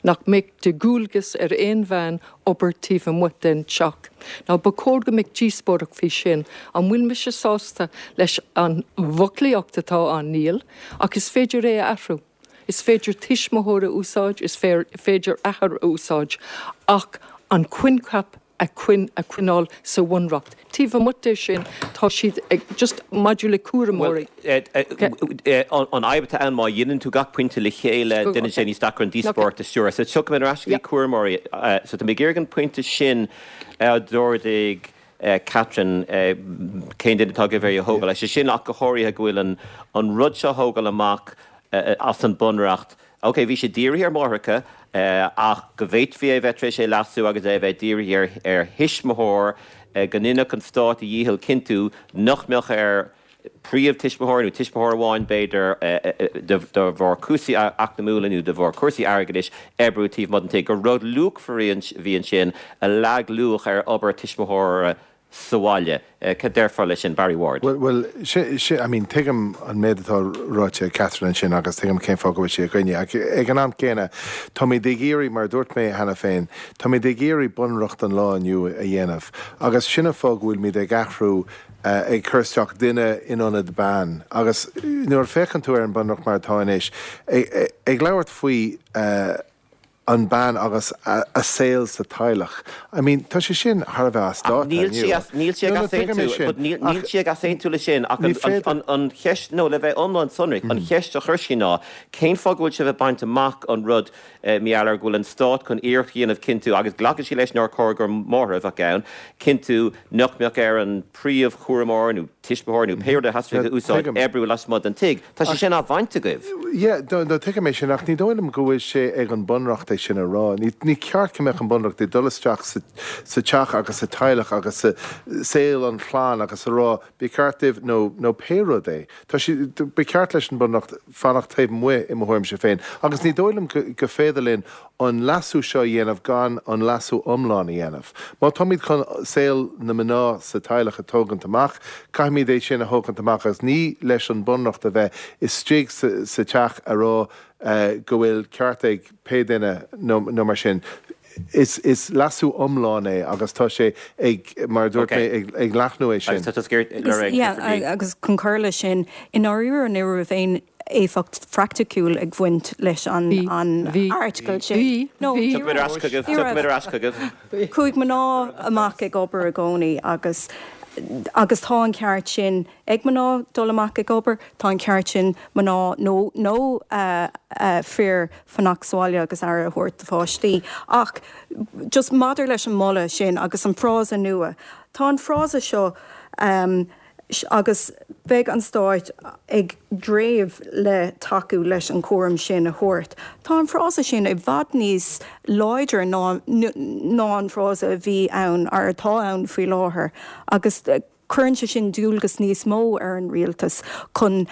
nach mbeadh de dhualgas ar aon bhean obair taobh amuigh den teach. Now, ba chóir go mbeadh díospóireacht faoi sin. An bhfuil mise sásta leis an bhfoclaíocht atá ann? Níl. Ach is féidir é a athrú. Is féidir tuismitheoir a úsáid, is féidir athair a úsáid, ach an coincheap a choinneáil sa bhunreacht. Taobh amuigh de sin, tá siad ag, just maidir le cúramóirí. Bhuel, an fhadhb atá ann, má dheineann tú gach pointe le chéile, déanann sé níos deacra an díospóireacht a stiúradh. So tiocfaidh mé ar ais go dtí cúramóirí. So tá mé ag iarraidh an pointe sin a d'ardaigh Catherine, cén duine atá agaibh é a thógáil? Sé sin ach go háirithe go bhfuil an rud seo a thógáil amach as an bunreacht, Ok, bhí sé dírithe ar mháithreacha, ach go bhféadfaí é a bheith tar éis é leasú agus é a bheith dírithe ar thuismitheoir, go ndéanfadh an stát a dhícheall cinntiú nach mbeadh ar phríomh-tuismitheoir, nó tuismitheoir amháin b'fhéidir, de bharr cúrsaí eacnamúla nó de bharr cúrsaí airgeadais, oibriú taobh amuigh den tigh. Gur rud luachmhar a bhí ansin a leag luach ar obair tuismitheora sa bhaile. Cad déarfá leis sin, Barry Ward? Bhuel, I mean, tuigim an méid atá ráite ag Catherine ansin agus tuigim cén fáth go bhfuil sí i gcoinne. Ach ag an am céanna, táimid ag iarraidh, mar a dúirt mé cheana féin, táimid ag iarraidh bunreacht an lá inniu a dhéanamh agus sin an fáth go bhfuilimid ag athrú, ag cur isteach duine in ionad bean. Agus nuair a féachann tú ar an bunreacht mar atá anois, ag labhairt faoi, an bean agus a saol sa teaghlach. I mean, tá sé sin thar a bheith as dáta inniu. Níl sí ag easaontú, but níl sí ag easaontú leis sin ach an cheist, nó le bheith iomlán sonrach, an cheist a chuir sí ná cén fáth go bhfuil sibh ag baint amach an rud mar gheall ar go bhfuil an stát chun iarracht a dhéanamh cinntiú, agus glacann sí leis nár chóir gur máthair a bheadh ann, cinntiú nach mbeadh ar an príomhchúramóir nó tuismitheoir nó pé rud a theastaigh a úsáid, oibriú lasmuigh den tigh. Tá sé sin á bhaint agaibh. Yeah, no, no, tuigim é sin, ach ní dóigh liom go bhfuil sé ag an Bunreacht é sin a rá. Ní, ní ceart go mbeadh an Bunreacht ag dul isteach sa, sa teach agus sa teaghlach agus sa saol an chlann agus a rá, ba cheart daoibh nó, nó pé rud é. Tá sé, ba cheart leis an Bunreacht fanacht taobh amuigh i mo thuairimse féin. Agus ní dóigh liom go, go féidir linn an leasú seo a dhéanamh gan an leasú iomlán a dhéanamh. Má táimid chun saol na mná sa teaghlach a tógaint amach, caithfimid é sin a thógaint amach agus ní leis an Bunreacht a bheith istigh sa teach a rá go bhfuil ceart ag pé duine nó mar sin. Is leasú iomlán é agus tá sé ag, mar a dúirt mé, ag leathnú é sin. Agus chun cur leis sin, i ndáiríre ní raibh aon éifeacht phraiticiúil ag bhaint leis an airteagal sin. Bhí, No, bhí, ní Tiocfaimid ar ais chugaibh, raibh. Ní tiocfaimid raibh. ar ais chugaibh. Chuaigh mná amach ag obair i gcónaí agus agus tá an ceart sin ag mná dul amach ag obair, tá an ceart sin mná nó nó fir fanacht sa bhaile agus aire a thabhairt do pháistí. Ach just maidir leis an moladh sin agus an frása nua, tá an frása seo agus beidh an Stáit ag dréimh le tacú leis an chúram sin a thabhairt. Tá an frása sin i bhfad níos láidre ná ná an frása a bhí ann, or atá ann faoi láthair agus cuireann sé sin dualgas níos mó ar an rialtas chun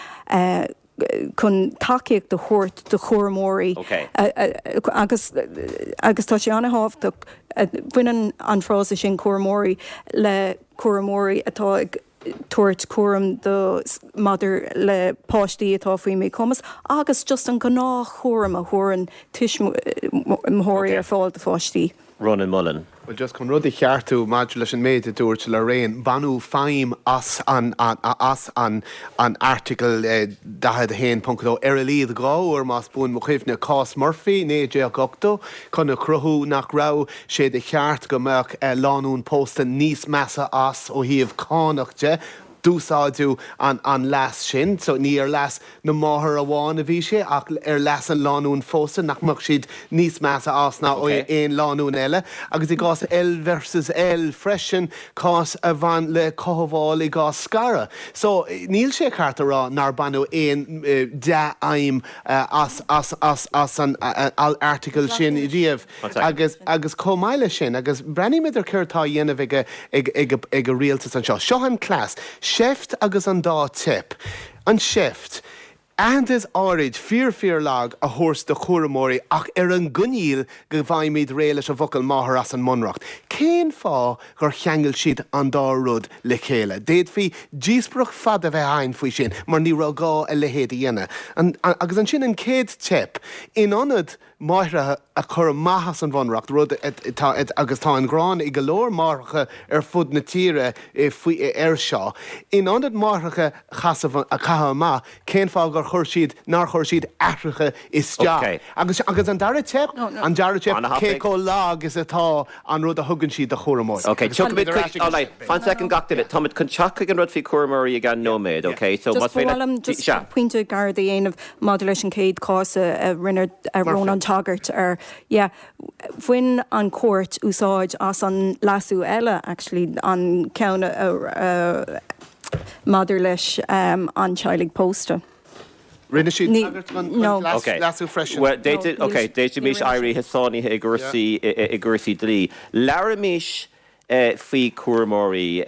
chun tacaíocht a thabhairt do chúramóirí agus agus tá sé an-thábhachtach, baineann an frása sin cúramóirí le cúramóirí atá ag. tabhairt cúram do maidir le páistí atá faoi mhíchumas agus just an gnáthchúram a thabharann tuismitheoirí ar fáil do pháistí. Rónán Mullen. Bhuel, just chun rud a cheartú maidir leis an méid a dúirt Lorraine, baineadh feidhm as an as an an Airteagal 41.2 ar a laghad 2 uair, más buan mo chuimhne, cás Murphy, 1980, chun a chruthú nach raibh sé de cheart go mbeadh lánúin pósta níos measa as ó thaobh cánach de. D'úsáideadh an an leas sin, so ní ar leas na máthar amháin a bhí sé ach ar leas an lánúin phósta, nach mbeadh siad níos measa as ná aon lánúin eile. Agus i gcás L versus L freisin, cás a bhain le cothabháil i gcás scaradh. So, níl sé ceart a rá nár baineadh aon dea-fheidhm as as as as an airteagal sin riamh. Agus agus chomh maith leis sin, agus breathnaímid ar céard atá á dhéanamh ag ag ag ag an rialtas anseo. Seo an cleas, seift agus an dá teip. An seift, aitheantas áirid, fíor fíor lag, a thabhairt do chúramóirí ach ar an gcoinníoll go bhfaighimid réidh leis an bhfocal máthair as an mBunreacht. Cén fáth gur cheangail siad an dá rud le chéile? D'fhéadfaí díospóireacht fada a bheith againn faoi sin mar ní raibh gá a leithéid a dhéanamh. Agus ansin an chéad teip, in ionad máithreacha a chur amach as an Bhunreacht, rud atá, agus tá an ghráin ag go leor máithreacha ar fud na tíre faoi, air seo. In ionad máithreacha a chasamh, a chaitheamh amach, cén fáth gur chuir siad, nár chuir siad aithreacha isteach? Agus, agus an dara teip, an dara teip, cé chomh lag is atá an rud a thugann siad do chúramóirí. Ok, tiocfaimid chuig, all right, fan soicind gach duine, táimid chun teacht chuig an rud faoi chúramóirí i gceann nóiméad, ok? So, Just más ba féidir mhaith liom just sea. pointe gairid a dhéanamh maidir leis an chéad chás a rinne Rónán tagairt air. Yeah, bhain an chúirt úsáid as an leasú eile, actually, an ceann a maidir leis an teaghlaigh pósta. Rinne siad tagairt don leasú freisin. Bhuel, d'fhéadfaimis éirí sáinnithe i gcúrsaí i gcúrsaí dlí. Labhraímis faoi chúramóirí.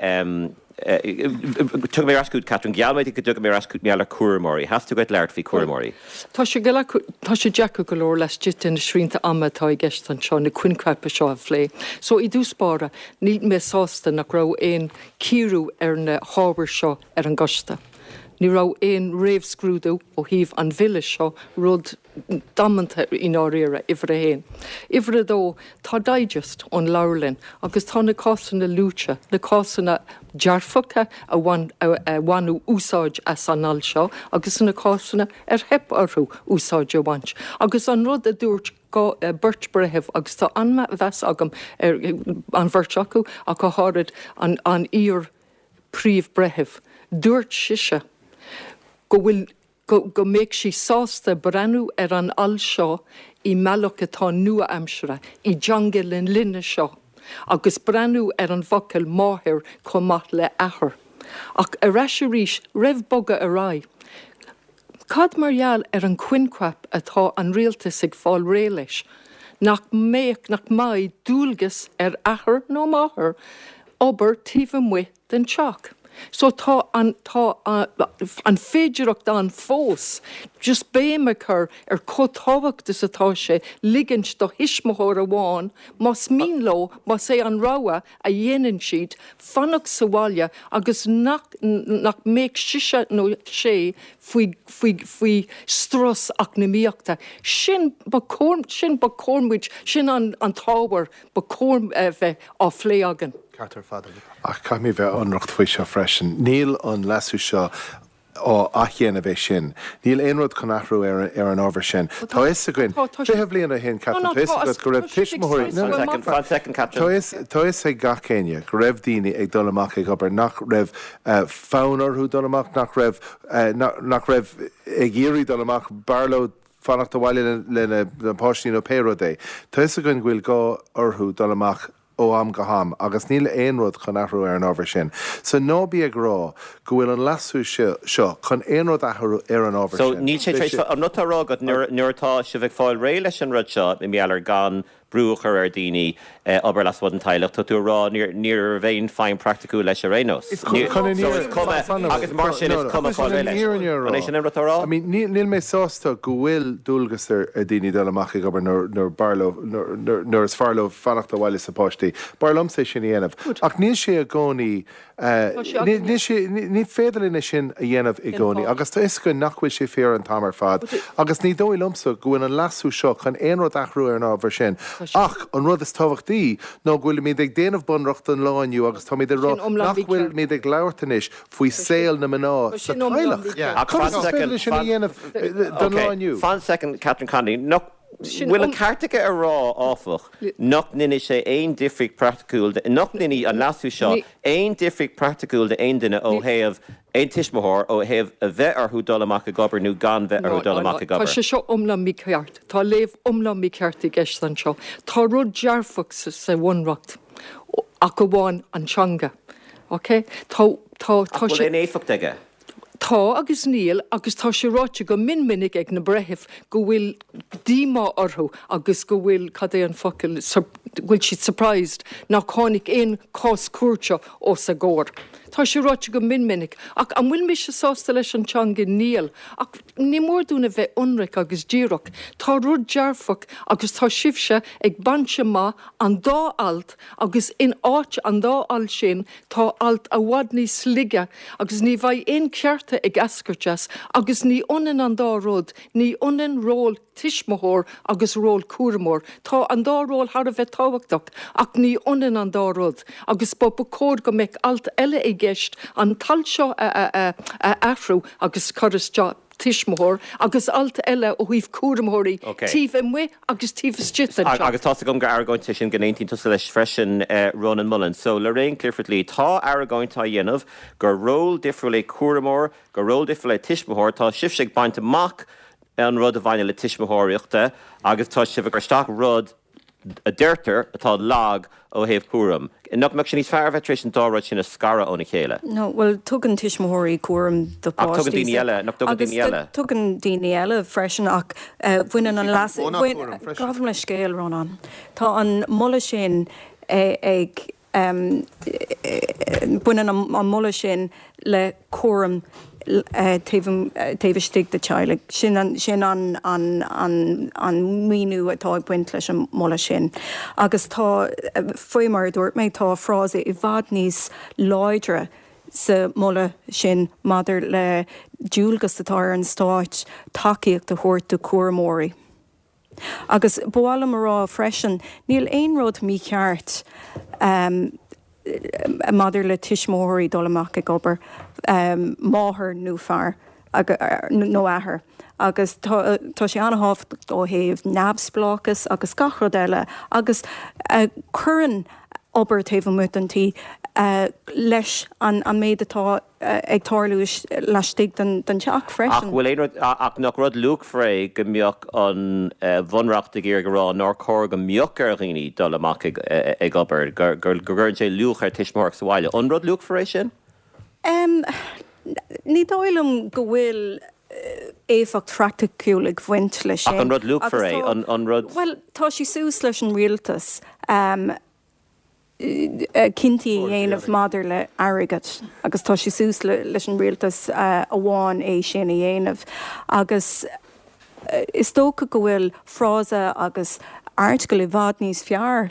Tiocfaidh mé ar ais chugat, Catherine. Gheall mé duit go dtiocfaidh mé ar ais chugat mar gheall ar chúramóirí. Theastaigh uait labhairt faoi chúramóirí. Tá sé tá sé deacair go leor laistigh de na srianta ama atá i gceist anseo na coincheapa seo a phlé. So i dtús báire, níl mé sásta nach raibh aon cíoradh ar na hábhair seo ar an gcoiste. Ní raibh aon réamhscrúdú ó thaobh an bhille seo, rud damanta i ndáiríre, uimhir a haon. Uimhir a dó, tá digest ón leabharlann agus tá na cásanna luaite, na cásanna dearfacha a bhain, a bhaineadh úsáid as an alt seo agus na cásanna ar theip orthu úsáid a bhaint. Agus an rud a dúirt beirt breitheamh, agus tá an-mheas agam ar an bheirt acu ach go háirid an iar Príomh-Bhreitheamh. Dúirt sise go bhfuil, go, go mbeadh sí sásta breathnú ar an alt seo i mbealach atá nua-aimseartha, i dteanga na linne seo, agus breathnú ar an bhfocal máthair chomh maith le athair. Ach ar ais arís, roimh bogadh ar aghaidh, Cad mar gheall ar an choincheap atá an rialtas ag fáil réidh leis, nach mbeadh, nach mbeidh dualgas ar athair nó máthair obair taobh amuigh den teach? So tá an, tá an féidireacht ann fós just béim a chur ar chomh tábhachtach is atá sé ligint do thuismitheoir amháin, más mian leo, más é an rogha a dhéanann siad, fanacht sa bhaile agus nach nach mbeadh sise nó sé faoi faoi faoi strus eacnamaíochta. Sin ba chóir sin ba chóir muid sin an an t-ábhar ba chóir a bheith á phlé againn. Ceart ar fad agat. Ach caithfidh mé bheith ionraic faoi seo freisin. Níl an leasú seo á athdhéanamh é sin. Níl aon rud chun athrú ar an ábhar sin. Tá fhios againn, 20 bliain ó shin, Catherine, tá fhios agat go raibh tuismitheoirí, no, no, Fan soicind, Catherine. Tá fhios ag gach éinne go raibh daoine ag dul amach ag obair nach raibh fonn orthu dul amach, nach raibh, nach raibh ag iarraidh dul amach, b'fhearr leo fanacht abhaile lena bpáistí nó pé rud é. Tá fhios againn go bhfuil gá orthu dul amach ó am go ham agus níl aon rud chun athrú ar an ábhar sin. So ná bí ag rá go bhfuil an leasú seo chun aon rud a athrú ar an ábhar So sin. níl sé tar éis, an rud atá á rá agat nuair atá sibh ag fáil réidh leis an rud seo, i ngeall ar gan. brú a chur ar daoine obair lasmuigh den teaghlach, tá tú ag rá ní raibh aon feidhm praiticiúil leis ar aon nós. So is cuma, agus mar sin is cuma cá bhfuil leis. An é sin an rud atá á rá? I mean, níl mé sásta go bhfuil dualgas ar daoine dul amach ag obair nuair b'fhearr leo, nuair is fearr leo fanacht abhaile leis na páistí. B'fhearr liomsa é sin a dhéanamh. Ach níl sé i gcónaí Níl sé, ní féidir linn é sin a dhéanamh i gcónaí agus tá 'fhios againn nach bhfuil sé fíor an t-am ar fad agus ní dóigh liomsa go bhfuil an leasú seo chun aon rud athrú ar an ábhar sin. Ach an rud is tábhachtaí ná go bhfuilimid ag déanamh bunreacht don lá inniu agus táimid ag rá nach bhfuilimid ag labhairt anois faoi saol na mná sa teaghlach. Conas is féidir linn sin a dhéanamh don lá inniu? Fan soicind, Catherine Connolly. Nach bhfuil an ceart aige a rá, áfach, nach ndéanfaidh sé aon difríocht praiticiúil, nach ndéanfaidh an leasú seo aon difríocht praiticiúil d'aon duine ó thaobh, aon tuismitheoir, ó thaobh a bheith orthu dul amach ag obair nó gan bheith orthu dul amach ag obair. Tá sé seo iomlán mícheart. Tá léamh iomlán mícheart i gceist anseo. Tá rud dearfach sa Bhunreacht ach amháin an teanga. Ok? Tá, tá, tá sé. Ach bhfuil aon éifeacht aige? Tá agus níl, agus tá sé ráite go mion minic ag na breithimh go bhfuil díomá orthu agus go bhfuil, cad é an focal, go bhfuil siad surprised nach tháinig aon chás cúirte os a gcomhair. Tá sé ráite go mion minic. Ach an bhfuil mise sásta leis an teanga? Níl. Ach ní mór dúinn a bheith ionraic agus díreach. Tá rud dearfach agus tá sibhse ag baint amach an dá alt agus in áit an dá alt sin tá alt i bhfad níos laige agus ní bheidh aon chearta ag eascairt as agus ní ionann an dá rud, ní ionann ról tuismitheoir agus ról cúramóir. Tá an dá ról thar a bheith tábhachtach ach ní ionann an dá rud agus ba ba chóir go mbeadh alt eile i gceist an t-alt seo a a athrú agus cur isteach tuismitheoir agus alt eile ó thaobh cúramóirí taobh amuigh agus taobh istigh den teach. Agus tá's agam gur argóint é sin go n-aontaíonn tusa leis freisin, Rónán Mullen. So, Lorraine Clifford-Lee, tá argóint á dhéanamh gur ról difriúil é cúramóir, gur ról difriúil é tuismitheoir. Tá sibhse ag baint amach an rud a bhaineann le tuismitheoireachta agus tá sibh ag cur isteach rud a deirtear atá lag ó thaobh cúraim. Nach mbeadh sé níos fearr a bheith tar éis an dá rud sin a scaradh óna chéile? No, bhuel, tugann tuismitheoirí cúram do Ach tugann daoine eile, nach dtugann daoine eile? Agus tugann daoine eile freisin ach baineann an leas, gabhaim leithscéal, Rónán. Tá an moladh sin ag Baineann an moladh sin le cúram taobh istigh de teaghlaigh. Sin an míniú atá ag baint leis an moladh sin. Agus tá, faoi mar a dúirt mé, tá frása i bhfad níos láidre sa moladh sin maidir le dualgas atá ar an Stát tacaíocht a thabhairt do chúramóirí. Agus ba mhaith liom a rá freisin, níl aon rud mícheart maidir le tuismitheoirí dul amach ag obair, máthair nó fear, nó athair, agus tá sé an-thábhachtach ó thaobh neamhspleáchas agus gach rud eile agus cuireann obair taobh amuigh den tí leis an méid atá ag tarlú laistigh den teach freisin. Ach bhfuil aon rud, ach nach rud luachmhar é go mbeadh an Bhunreacht ag iarraidh a rá nár chóir go mbeadh ar dhaoine dul amach ag obair, go gcuireann sé luach ar tuismitheoireacht sa bhaile. An rud luachmhar é sin? Ní dóigh liom go bhfuil éifeacht phraiticiúil ag baint leis sin. Ach an rud luachmhar é? An rud. Bhuel, tá sé suas leis an rialtas. cinntí a dhéanamh maidir le airgead agus tá sé suas leis an rialtas amháin é sin a dhéanamh agus is dócha go bhfuil frása agus airteagal i bhfad níos fearr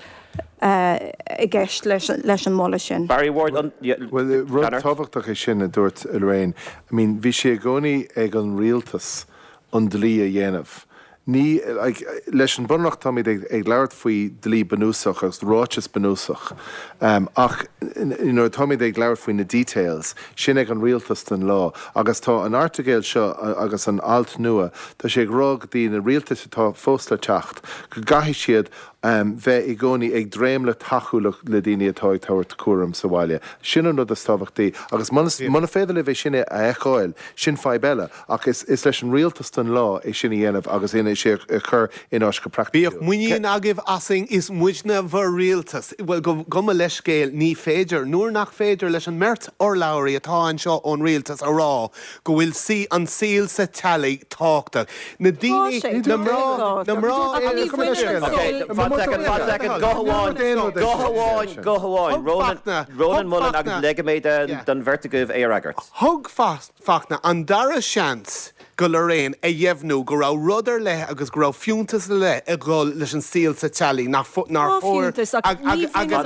i gceist leis an moladh sin. Barry Ward, an. Bhuel, rud tábhachtach é sin a dúirt Lorraine. I mean, bhí sé i gcónaí ag an rialtas an dlí a dhéanamh. Ní, like, leis an Bunreacht táimid ag, ag labhairt faoi dlí bunúsach agus ráiteas bunúsach, ach nuair atáimid ag labhairt faoi na details, sin ag an rialtas don lá. Agus tá an airteagail seo agus an alt nua, tá sé ag rá go dtí na rialtais atá fós le teacht, go gcaithfidh siad bheith i gcónaí ag dréim le tacú le, le daoine atá ag tabhairt cúram sa bhaile. Sin an rud is tábhachtaí. Agus muna, muna féidir libh é sin a fheiceáil, sin fadhb eile. Ach is leis an rialtas don lá é sin a dhéanamh agus ina. sé a chur in áit go praiticiúil. Bíodh muinín agaibh asainn, is muidne bhur rialtas. Bhuel, gabh mo leithscéal, ní féidir. Nuair nach féidir leis an mbeirt urlabhraí atá anseo ón rialtas a rá go bhfuil sí, an saol sa teaghlaigh tábhachtach. Na daoine, na mná, na mná, Fan soicind, fan soicind, guth amháin, guth amháin, guth amháin. Rónán, Rónán Mullen agus ligfidh mé don bheirt agaibh é a fhreagairt. Thug Fachtna an dara seans do Lorraine a dheimhniú go raibh rud ar leith agus go raibh fiúntas ar leith ag dul leis an saol sa teaghlaigh nach nár chóir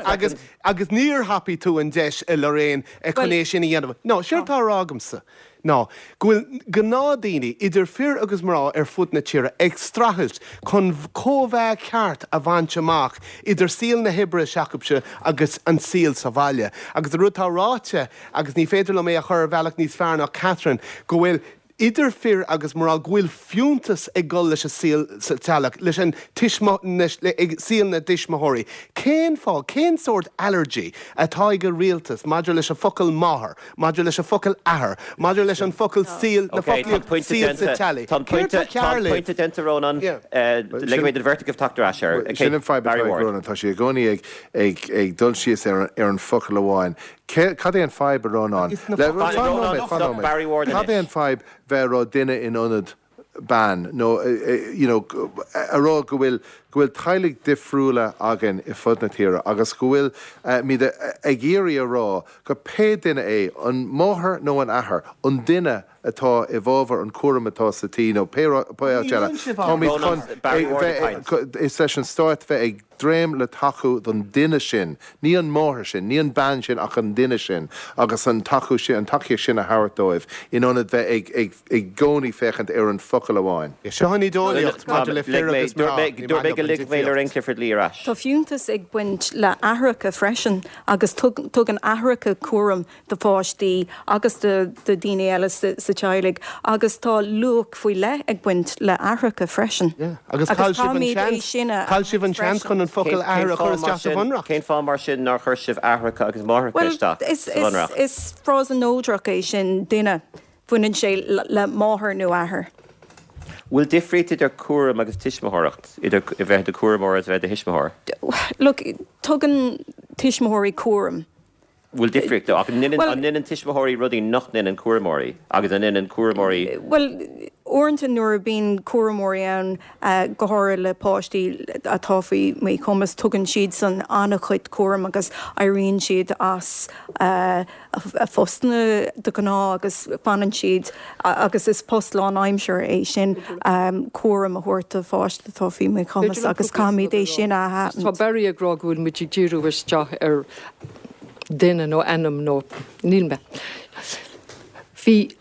agus agus níor thapaigh tú an deis a Lorraine chun é sin a dhéanamh. No, séard atá á rá agamsa ná go bhfuil gnáthdaoine, idir fir agus mná ar fud na tíre, ag streachailt chun cóimheá ceart a bhaint amach idir saol na hoibre s'acusan agus an saol sa bhaile. Agus an rud atá ráite, agus ní féidir liom é a chur ar bhealach níos fearr ná Catherine, go bhfuil idir fir agus mná, go bhfuil fiúntas ag dul leis an saol sa teaghlach, leis an ag saol na dtuismitheoirí. Cén fáth, cén sórt allergy atá ag an rialtas maidir leis an focal máthair, maidir leis an focal athair, maidir leis an focal saol, na foclaíocht saol sa teaghlaigh? Tá an pointe, tá an pointe déanta, Rónán. Ligfidh mé don bheirt agaibh teacht ar ais air. Sin an fadhb atá ag Rónán, tá sé i gcónaí ag, ag, ag dul síos ar an, ar an focal amháin. Cad é an fadhb, a Rónáin? Fan nóiméad, fan nóiméad. Cad é an fadhb bheith ag rá duine in ionad bean nó you know a rá go bhfuil go bhfuil teaghlaigh difriúla againn i fud na tíre agus go bhfuil muid ag iarraidh a rá go pé duine é, an máthair nó an athair, an duine atá i bhfabhar an cúram atá sa tí nó pé áit eile, táimid chun bheith, is leis an stát bheith ag dréim le tacú don duine sin, ní an máthair sin, ní an bean sin ach an duine sin agus an tacú sin, an tacaíocht sin a thabhairt dóibh in ionad bheith ag, ag, i gcónaí féachaint ar an focal amháin. Seo an ídeolaíocht maidir le fir agus mná, ní maith liom an difríocht. Tá fiúntas ag baint le aithreacha freisin agus tugann aithreacha cúram do pháistí agus do dhaoine eile sa teaghlaigh agus tá luach faoi leith ag baint le aithreacha freisin. Agus chaill sibh an seans, chaill sibh an seans chun an focal athair a chur isteach sa bhunreacht. Cén fáth mar sin nár chuir sibh aithreacha agus máithreacha isteach sa bhunreacht? Bhuel, is frása neodrach é sin, duine. Baineann sé le máthair nó athair. Bhfuil difríocht idir cúram agus tuismitheoireacht, idir a bheith i do chúramóir agus a bheith i do thuismitheoir? Look, tugann tuismitheoirí cúram. Bhfuil difríocht, ach an ndéanann tuismitheoirí rudaí nach ndéanann cúramóirí agus an ndéanann cúramóirí. Bhuel, uaireanta nuair a bíonn cúramóirí ann, go háirithe le páistí atá faoi mhíchumas, tugann siadsan an-chuid cúraim agus éiríonn siad as a phostanna de ghnáth agus fanann siad agus is post lánaimseartha é sin cúram a thabhairt do pháiste atá faoi mhíchumas agus caithfimid é sin a aithint. Tá Barry ag rá go bhfuil muid ag díriú isteach ar duine nó ainm nó níl mé. Bhí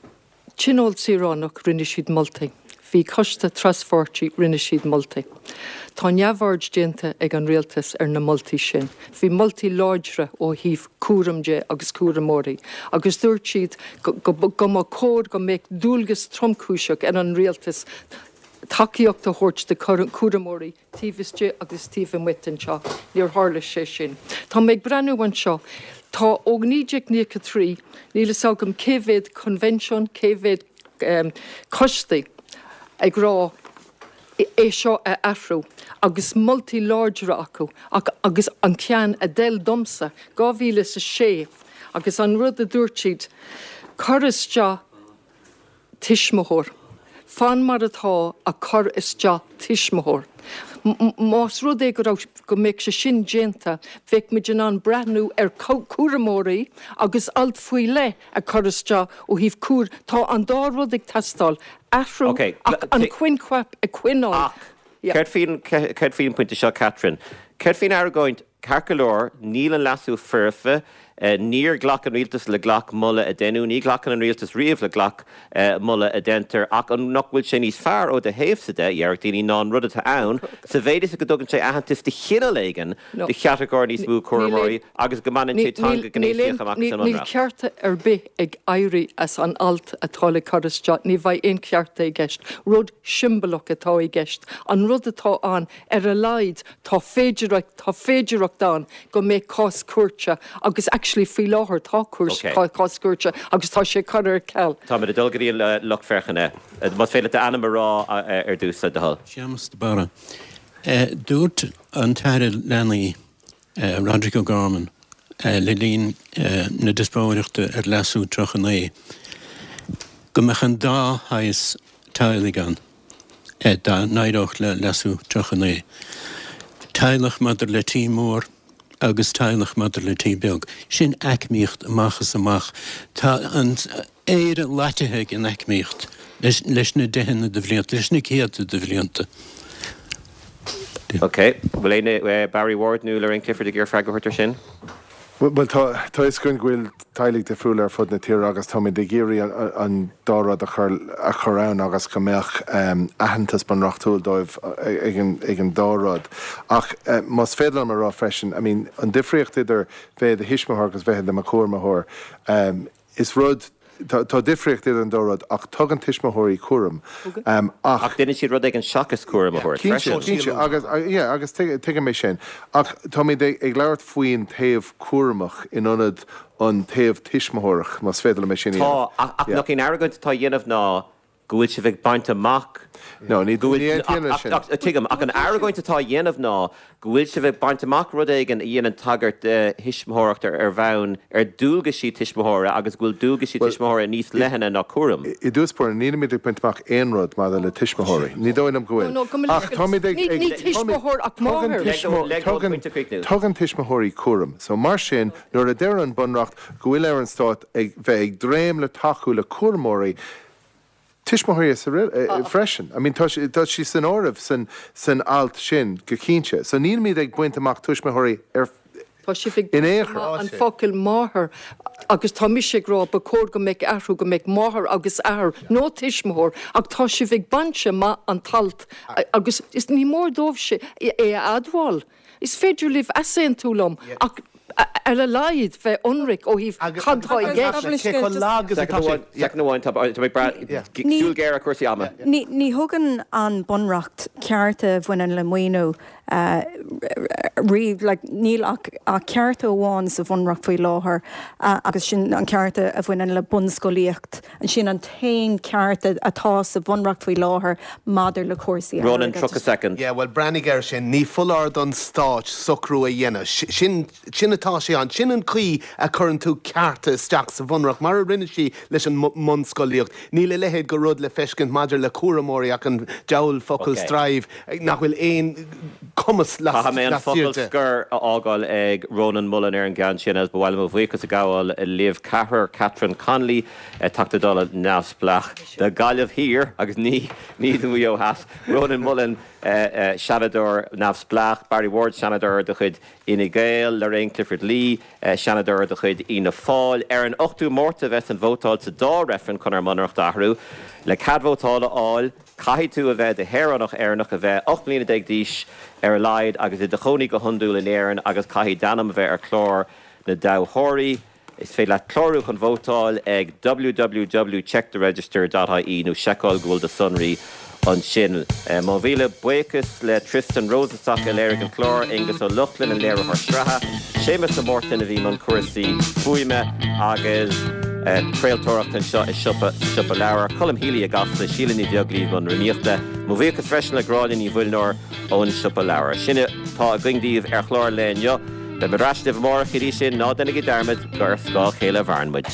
Tionól Saoránach, rinne siad moltaí. Bhí coiste traspháirtí, rinne siad moltaí. Tá neamhaird déanta ag an rialtas ar na moltaí sin. Bhí moltaí láidre ó thaobh cúram de agus cúramóirí agus dúirt siad go mba chóir go mbeadh dualgas tromchúiseach ar an rialtas tacaíocht a thabhairt do chúramóirí taobh istigh agus taobh amuigh den teach. Níor tharla sé sin. Tá mé ag breathnú anseo. Tá ó 1993, níl fhios agam cé mhéad coinbhinsiún, cé mhéad coistí ag rá é seo a athrú agus moltaí láidre acu ach agus an ceann a d'fheil domsa, 2006 agus an rud a dúirt siad, cur isteach tuismitheoir. Fan mar atá ach cur isteach tuismitheoir. Más rud é go raibh, go mbeadh sé sin déanta, bheadh muid in ann breathnú ar chúramóirí agus alt faoi leith a chur isteach ó thaobh cúr, tá an dá rud ag teastáil, athrú ach an coincheap a choinneáil. Ach céard faoin, céard faoin bpointe seo, Catherine? Céard faoin argóint Ceart go leor, níl an leasú foirfe. Níor ghlac an rialtas le gach moladh a deineadh. Ní ghlacann an rialtas riamh le gach moladh a deintear. Ach an nach bhfuil sé níos fearr ó do thaobhsa de, déarfadh daoine, ná an rud atá ann, sa mhéid is go dtugann sé aitheantas de chineál éigin do chatagóir níos mó cúramóirí agus go mbaineann sé teanga ghnéasach amach as an Níl mBunreacht? cearta ar bith ag éirí as an alt atá le cur isteach. Ní bheidh aon chearta i gceist. Rud siombalach atá i gceist. An rud atá ann, ar a laghad, Tá féidearthacht, tá féidearthacht ann go mbeidh cás cúirte agus. Actually faoi láthair tá cúirt, cás cúirte agus tá sé curtha ar ceal. Táimid ag dul go dtí an lucht féachana. Más féidir leat d'ainm a rá ar dtús, le do thoil. Séamus de Barra. Dúirt an tAire Leanaí, Roderic O'Gorman, le linn na diospóireachta ar Leasú 39 go mbeadh an dá shaghas teaghlaigh ann dá n-éireodh le Leasú 39, teaghlach maidir le tí mór agus teaghlach maidir le tí beag. Sin aicmíocht amach is amach. Tá an. Éire loitithe ag an aicmíocht leis na deicheanna de bhlianta, leis na céadta de bhlianta. Ok. Bhfuil éinne, Barry Ward nó Lorraine Clifford ag iarraidh freagra a thabhairt ar sin? Bhuel, tá a fhios againn go bhfuil teaghlaigh difriúla ar fud na tíre agus táimid ag iarraidh an dá rud a chur a chur ann agus go mbeadh aitheantas bunreachtúil dóibh ag an dá rud. Ach más féidir liom a rá freisin, I mean, an difríocht idir bheith i do thuismitheoir agus bheith i do chúramóir, Is rud, tá difríocht idir an dá rud ach tugann tuismitheoirí cúram ach. Ach déanann siad rud éigin seachas cúram a thabhairt freisin. Cinnte, cinnte agus, yeah, agus tuigim é sin. Ach táimid ag labhairt faoin taobh cúramach in ionad an taobh tuismitheoireach, más féidir liom é sin a dhéanamh. Tá, ach nach í an argóint atá á dhéanamh ná go bhfuil sibh ag baint amach No, ní go bhfuil, aontaím leis sin. ach, tuigim, ach an argóint atá á dhéanamh ná go bhfuil sibh ag baint amach rud éigin a dhéanann tagairt do thuismitheoireacht ar ar bhonn ar dualgaisí tuismitheora agus go bhfuil dualgaisí Bhuel, tuismitheora níos leithne ná cúram. I dtús báire, nílimid ag baint amach aon rud maidir le tuismitheoirí. Ní dóigh liom go bhfuil. No, no, go mba Ach táimid ag, Ní, ag, ní táimid, tuismitheoir ach tugann máthair. Leg leg tugann, pointe a chríochnú. tugann tuismitheoirí cúram. So mar sin, nuair a deir an Bunreacht go bhfuil ar an Stát ag bheith ag dréim le tacú le cúramóirí, tuismitheoirí freisin. I mean tá tá sí san áireamh san san alt sin go cinnte. So nílimid ag baint amach tuismitheoirí ar Tá sibh ag in aon baint chor. amach an focal máthair agus tá mise ag rá ba chóir go mbeadh athrú go mbeadh máthair agus athair nó tuismitheoir ach tá sibh ag baint amach an t-alt agus is ní mór dóibh é a admháil. Is féidir libh easaontú liom ach ar a laghad bheith ionraic ó thaobh cad tá i gceist. Soicind amháin, tá mé ag brath, súil ghéar ar chúrsaí ama. Ní thugann an Bunreacht cearta a bhaineann le maoiniú riamh. Níl ach cearta amháin sa Bhunreacht faoi láthair agus sin an ceart a bhaineann le bunscolaíocht. Sin an t-aon ceart atá sa Bhunreacht faoi láthair maidir le cúrsaí Ronan, airgeadais. 30 soicind. Yeah, bhuel, breathnaigh air sin. Ní foláir don Stát socrú a dhéanamh. Sin, sin atá sé ann. Sin an chaoi a chuireann tú cearta isteach sa Bhunreacht, mar a rinne sí leis an mbunscolaíocht. Níl a leithéid de rud le feiscint maidir le cúramóirí ach an diabhal focal Ok. strive, nach bhfuil aon cumas Caithfidh mé an focal laistigh de. scoir a fhágáil ag Rónán Mullen ar an gceann sin agus ba mhaith liom mo bhuíochas a ghabháil libh ceathrar, Catherine Connolly, Teachta Dála neamhspleách do Ghaillimh Thiar agus ní ní do Mhaigh Eo Theas, Rónán Mullen, Seanadóir neamhspleách, Barry Ward, Seanadóir de chuid Fhine Gael, Lorraine Clifford Lee, Seanadóir de chuid Fhianna Fáil. Ar an 8ú Márta a bheas an vótáil sa dá reifreann chun ár mBunreacht a athrú. Le cead vótála a fháil, Caithfidh tú a bheith i do shaoránach Éireannach, a bheith 18 mbliana d'aois ar a laghad agus i do chónaí go hiondúil in Éirinn agus caithfidh d'ainm a bheith ar chlár na dtoghthóirí. Is féidir leat clárú chun vótáil ag www checktheregister dot ie nó seiceáil go bhfuil do sonraí ansin. Mo mhíle buíochas le Tristan Rosenstock a léirigh an clár, Aengus Ó Lochlainn an léiritheoir sraithe, Séamus de Mártain a bhí i mbun cúrsaí fuaime agus craoltóireachta anseo i siopa sa Siopa Leabhar, Colm Healy i gCasla, Síle Ní Bheaglaoí i mbun rúnaíochta. Mo bhuíochas freisin le Gráinne Ní Mhuilneoir ón Siopa Leabhar. Sin atá againn daoibh ar chlár an lae inniu. Beimid ar ais libh amárach, go dtí sin, ná déanaigí dearmad gur ar scáth a chéile a mhaireann muid.